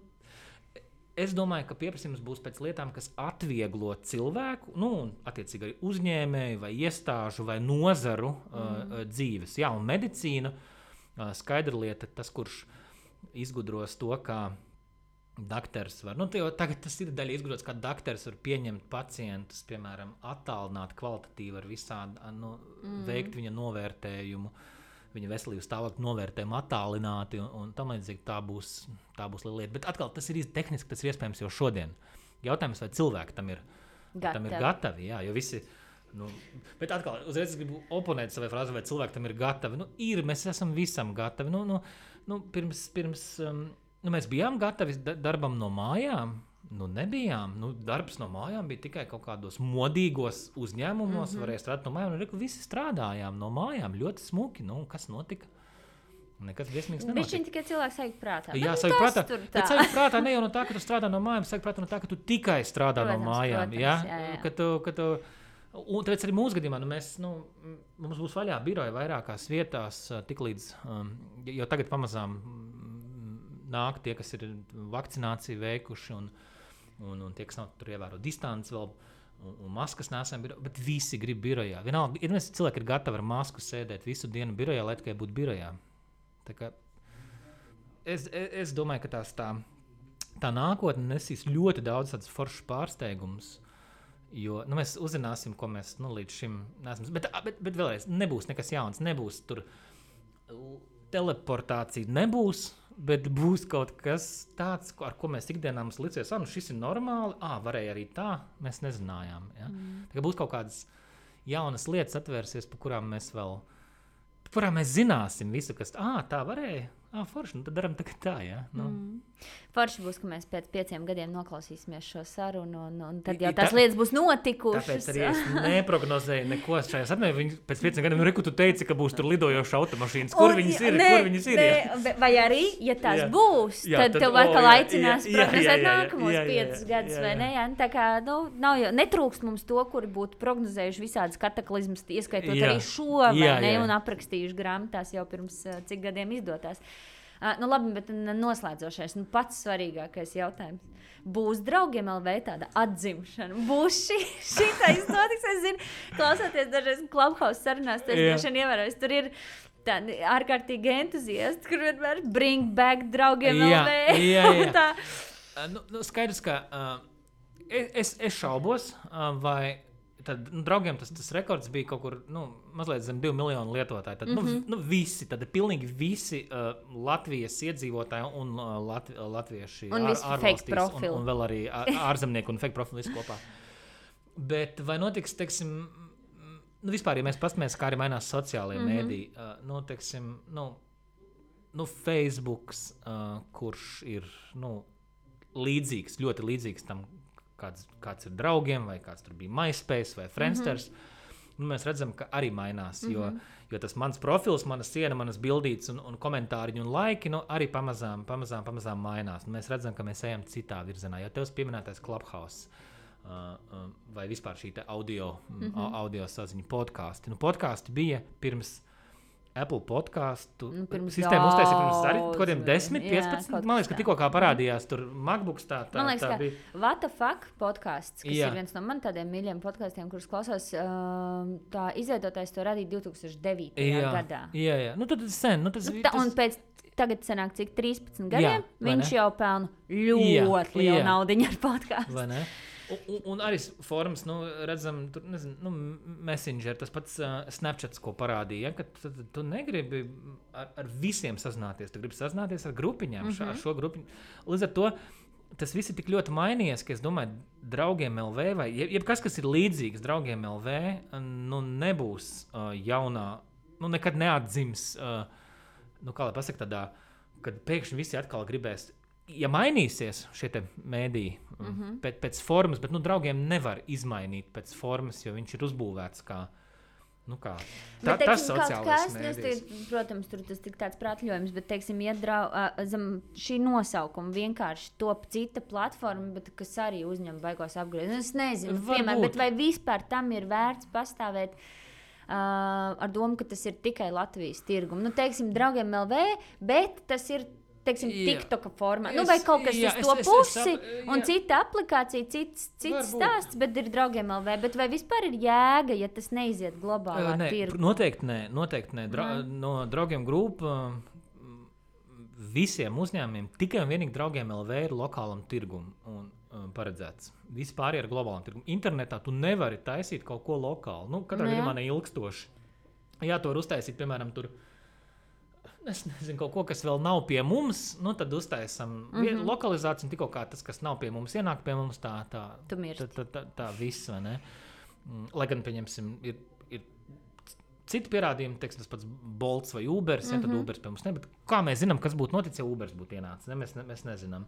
es domāju, ka pieprasījums būs pēc lietām, kas atvieglo cilvēku, un attiecīgi arī uzņēmēju vai iestāžu vai nozaru dzīves. Jā, un medicīna, skaidra lieta, tas, kurš izgudros to, kā dakters var, tagad tas ir daļa izgudrots, kā dakters var pieņemt pacientus, piemēram, attālināt kvalitatīvi ar visādi, veikt viņa novērtējumu, viņa veselības stāvokļa novērtējumu attālināti un tam līdzīgi tā būs lieta. Bet atkal tas ir tehniski, tas ir iespējams jau šodien. Jautājums, vai cilvēki tam ir gatavi, jā, jo visi, bet atkal, uzreiz gribu oponēt savai frāzi, vai cilvēki tam ir gatavi. Mēs esam visam gatavi. Pirms mēs bijām gatavi darbam no mājām, nebijām. Darbs no mājām bija tikai kaut kādos modīgos uzņēmumos, varēja strādāt no mājām, un visi strādājām no mājām, ļoti smuki. Kas notika? Nekas briesmīgs nenotika. Viņš tikai cilvēks sajūt prātā. Jā, sajūt prātā. Bet sajūt prātā ne jau no tā, ka tu strādā no mājām, sajūt prātā no tā, ka tu tikai strādā no mājām. Jā. Un tāpēc arī mūsu gadījumā mums būs vaļā biroja vairākās vietās, tiklīdz jau tagad pamazām nāk tie, kas ir vakcināciju veikuši un tie, kas nav tur ievēro distanci vēl, un maskas nesam birojā, bet visi grib birojā. Vienalga, cilvēki ir gatavi ar masku sēdēt visu dienu birojā, lai tikai būtu birojā. Tā kā es domāju, ka tā nākotne nesīs ļoti daudz tādus foršus pārsteigumus, jo mēs uzzināsim, ko mēs līdz šim neesam. Bet vēlreiz, nebūs nekas jauns, nebūs tur teleportācija, nebūs, bet būs kaut kas tāds, ar ko mēs ikdienā mums licies, šis ir normāli, varēja arī tā, mēs nezinājām. Ja? Tā kā būs kaut kādas jaunas lietas atvērsies, par kurām mēs zināsim visu, kas tā varēja. Forši, tad daram tagad tā, jā. Forši būs, ka mēs pēc 5 gadiem noklausīsimies šo sarunu, un tad jau tās lietas būs notikušas. Tāpēc arī es neprognozēju neko šajā sarunā. Pēc 5 gadiem, reku tu teici, ka būs tur lidojoša automašīnas. Kur viņas ir? Vai arī, ja tās būs, tad tev atkal aicinās prognozēt nākamos 5 gadus, vai ne? Jā. Tā kā, netrūkst mums to, kuri būtu prognozējuši visādas kataklizmas, ieskaitot arī šo, vai ne? Un aprakstījuši grāmatās jau pirms cik gadiem izdotās. Labi, bet noslēdzošais, pats svarīgākais jautājums. Būs Draugiem LV tāda atzimšana? Būs šitais notiks? Es zinu, klausoties dažreiz Clubhouse sarunās, tas droši vien ievērojis. Tur ir tādi ārkārtīgi entuziasti, kur vienmēr bring back Draugiem LV. Jā. Skaidrs, ka es šaubos, vai tad, Draugiem tas rekords bija kaut kur mazliet zem 2 miljonu lietotāju. Tad, visi, tad pilnīgi visi Latvijas iedzīvotāji un latvieši ārvalstīs un vēl arī ārzemnieki un fake profili visi kopā. Bet vai notiks, teiksim, vispār, ja mēs pastamies, kā arī mainās sociālie mēdī, teiksim, Facebooks, kurš ir, līdzīgs, ļoti līdzīgs tam, kāds ir Draugiem, vai kāds tur bija MySpace vai Friendsters, mēs redzam, ka arī mainās, jo tas mans profils, mana siena, manas bildītes un komentāriņi un laiki, arī pamazām mainās. Mēs redzam, ka mēs ejam citā virzienā, jo tevs pieminētais Clubhouse vai vispār šī te audio saziņu podkasti. Podkasti bija pirms Apple podcastu sistēmu uztaisīja pirms arī kodiem 10, 15. Man liekas, ka tikko kā parādījās tur MacBooks tā man liekas, tā bija. What the fuck podcasts, kas ir viens no man tādiem mīļiem podkastiem, kurus klausos, tā izveidotājs to radīja 2009. Gadā. Jā. Tad sen. Un pēc tagad sanāk cik 13 gadiem, viņš jau pelna ļoti lielu naudiņu ar podcastu. Vai ne? Un arī formas, redzam, tur, Messenger, tas pats Snapchats, ko parādīja, ka tu negribi ar visiem sazināties, tu gribi sazināties ar grupiņām, ar šo grupiņu. Līdz ar to tas viss ir tik ļoti mainījies, ka es domāju, Draugiem LV vai jebkas, kas ir līdzīgs Draugiem LV, nebūs jaunā, nekad neatdzims, kā lai pasaka tādā, kad pēkšņi visi atkal gribēs. Ja mainīsies šie te mēdī pēc formas, bet Draugiem nevar izmainīt pēc formas, jo viņš ir uzbūvēts kā tas sociālais mēdījis. Protams, tur tas tik tāds prātļojums, bet, teiksim, zem šī nosaukuma vienkārši top cita platforma, bet kas arī uzņem baigos apgriezienus. Es nezinu, piemēram, bet vai vispār tam ir vērts pastāvēt ar domu, ka tas ir tikai Latvijas tirgumu. Teiksim, Draugiem LV, bet tas ir TikToka formā. Vai kaut kas uz to pusi, un cita aplikācija, cits stāsts, bet ir Draugiem LV. Bet vai vispār ir jēga, ja tas neiziet globālā tirgu? Noteikti nē. No Draugiem grupa visiem uzņēmumiem tikai un vienīgi Draugiem LV ir lokālam tirgum paredzēts. Vispār ir globālam tirgum. Internetā tu nevari taisīt kaut ko lokāli. Katrā gadījumā neilgstoši. Jā, to var uztaisīt, piemēram, tur. Es nezinu, kaut ko, kas vēl nav pie mums, tad uztaisam lokalizāciju, un tikko kā tas, kas nav pie mums, ienāk pie mums, tā viss, vai ne? Lai gan, pieņemsim, ir citi pierādījumi, teiksim, tas pats Bolts vai Ubers, tad Ubers pie mums ne, bet kā mēs zinām, kas būtu noticis, ja Ubers būtu ienācis, ne? Mēs nezinām.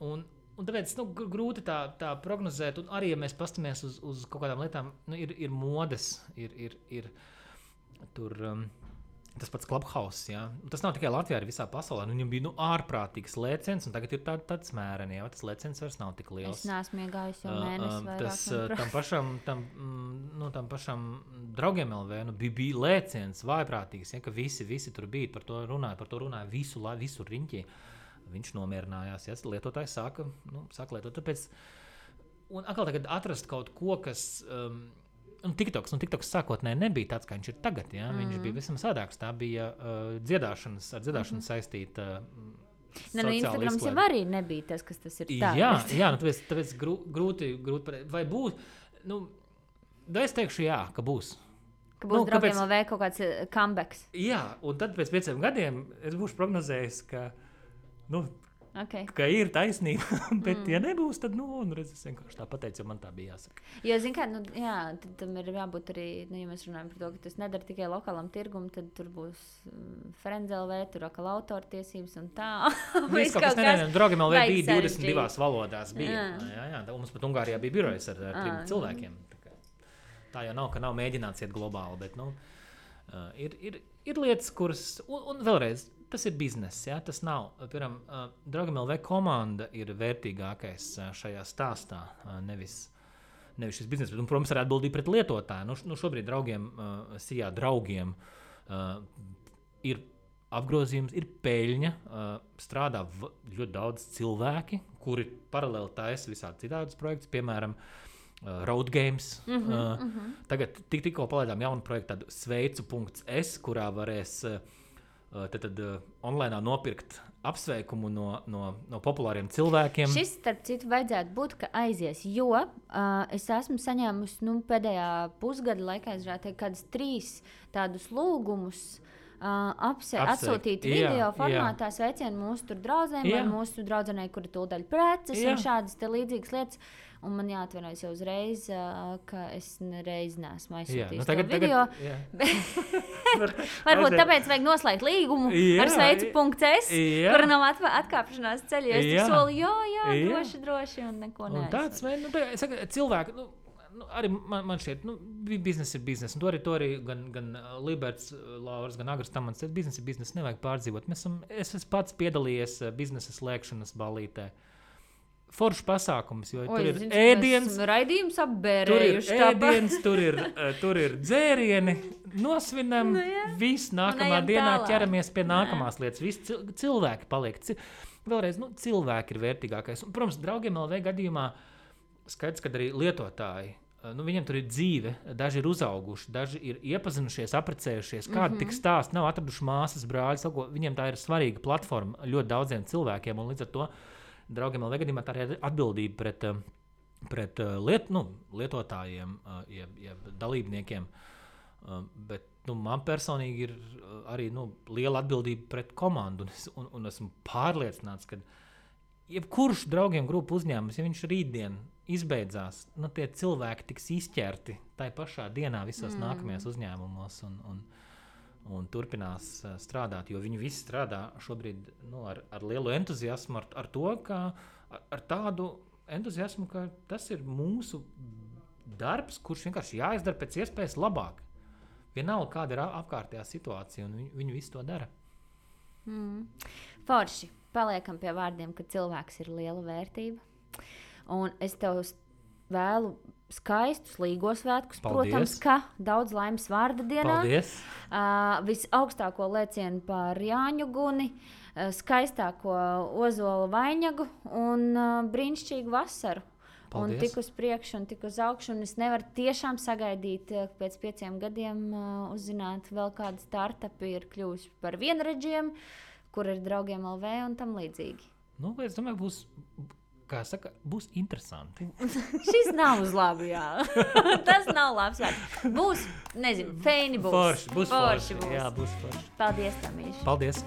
Un tāpēc, grūti tā prognozēt, un arī, ja mēs pastamies uz kaut kādām lietām, ir modes, ir tur... Tas pats Clubhouse, jā. Tas nav tikai Latvijā, arī visā pasaulē. Viņam bija ārprātīgs lēciens, un tagad ir tāds mēreni, jā. Tas lēciens vairs nav tik liels. Es neesmu iegājis jau mēnesi vairāk. Tam pašam Draugiem LV bija lēciens vājprātīgs, ja, ka visi tur bija, par to runāja visu riņķi. viņš nomierinājās, ja lietotājs sāka lietot. Tāpēc, un atkal tagad atrast kaut ko, kas... TikToks sākotnēji nebija tāds, kā viņš ir tagad. Ja? Viņš bija visam sādāks. Tā bija ar dziedāšanu saistīta Instagrams jau arī nebija tas, kas tas ir tā. Jā, tāpēc grūti vai būs. Es teikšu jā, ka būs. Ka būs draugiem vēl kaut kāds comebacks. Jā, un tad pēc 5 gadiem es būšu prognozējis, ka ir taisnība, bet ja nebūs, tad, es vienkārši tā pateicu, jo man tā bija jāsaka. Jo, zin kā, tad tam ir jābūt arī, ja mēs runājam par to, ka tas nedara tikai lokālam tirgum, tad tur būs Friends.lv, tur atkal autortiesības un tā. Viss kaut kas nevienam, draugiem LV bija 22 valodās bija. Jā, mums pat Ungārijā bija birojas ar 3 cilvēkiem. Tā jau nav, ka nav mēģināts iet globāli, bet, ir lietas, kuras, un vēlreiz, tas ir bizness, ja? Tas nav. Piemēram, Draugiem LV komanda ir vērtīgākais šajā stāstā, nevis šis bizness, bet, protams, arī atbildība pret lietotāju. Šobrīd draugiem ir apgrozījums, ir peļņa, strādā ļoti daudz cilvēki, kuri paralēli taisa visādi citādus projektus, piemēram, Road Games. Tagad tikko palaidām jaunu projektu, tādu sveicu.es, kurā varēs tad online nopirkt apsveikumu no populāriem cilvēkiem. Šis, starp citu, vajadzētu būt, ka aizies, jo es esmu saņēmusi pēdējā pusgada laikā, kādus 3 tādus lūgumus atsūtīt video formātā sveicienu mūsu draudzēm vai mūsu draudzenei, kura tūdaļ preces un šādas te līdzīgas lietas. Un man jāatvainojas jau uzreiz, ka es nereiz neesmu aizsūtījis to video. Varbūt tāpēc vajag noslēgt līgumu ar sveicu.es, kura nav atkāpšanās ceļā. Es tik soli, droši un neko neaizsūtu. Cilvēki, arī man šķiet, biznes ir biznes. Un to arī gan Liberts, Lauras, gan Agris Tamans, biznes ir biznes, nevajag pārdzīvot. Es esmu pats piedalījies biznesa slēgšanas ballītē. Foršs pasākums, jo tur ir ēdiens, raidījums apbērējuši. Tur ir dzērieni, nosvinam, viss nākamā dienā ķeramies pie nākamās lietas. Visi cilvēki paliek. Vēlreiz, cilvēki ir vērtīgākais. Un, protams, Draugiem LV gadījumā skaidrs, ka arī lietotāji, viņiem tur ir dzīve, daži ir uzauguši, daži ir iepazinušies, apprecējušies, kādi tik stāsti, nav atraduši māsas, brāļus, viņiem tā ir svarīga platforma ļoti daudziem cilvēkiem, un līdz ar to Draugiem LV gadījumā tā ir atbildība pret lietotājiem, jeb dalībniekiem, bet man personīgi ir arī liela atbildība pret komandu, un esmu pārliecināts, ka jebkurš Draugiem grupu uzņēmums, ja viņš rītdien izbeidzās, tie cilvēki tiks izķerti tai pašā dienā visos nākamajos uzņēmumos un turpinās strādāt, jo viņi visi strādā šobrīd ar lielu entuziasmu, ar to, ka ar tādu entuziasmu, ka tas ir mūsu darbs, kurš vienkārši jāizdara pēc iespējas labāk. Vienalga, kāda ir apkārtējā situācija, un viņi visi to dara. Forši, paliekam pie vārdiem, ka cilvēks ir liela vērtība. Un es tev vēlu skaistus līgos svētkus, protams, ka daudz laimes vārda dienā. Paldies! Visaugstāko lēcienu par Jāņu guni, skaistāko ozola vainagu un brīnišķīgu vasaru. Paldies. Un tik uz priekšu un tik uz augšu. Un es nevaru tiešām sagaidīt pēc 5 gadiem uzzināt vēl kāda startupi ir kļuvusi par vienredžiem, kur ir Draugiem LV un tam līdzīgi. Es domāju, būs interesanti. Šis nav uz labu, jā. Tas nav labs vārds. Būs, nezinu, feini būs. Forši. Jā, būs forši. Paldies, Tamīši. Paldies.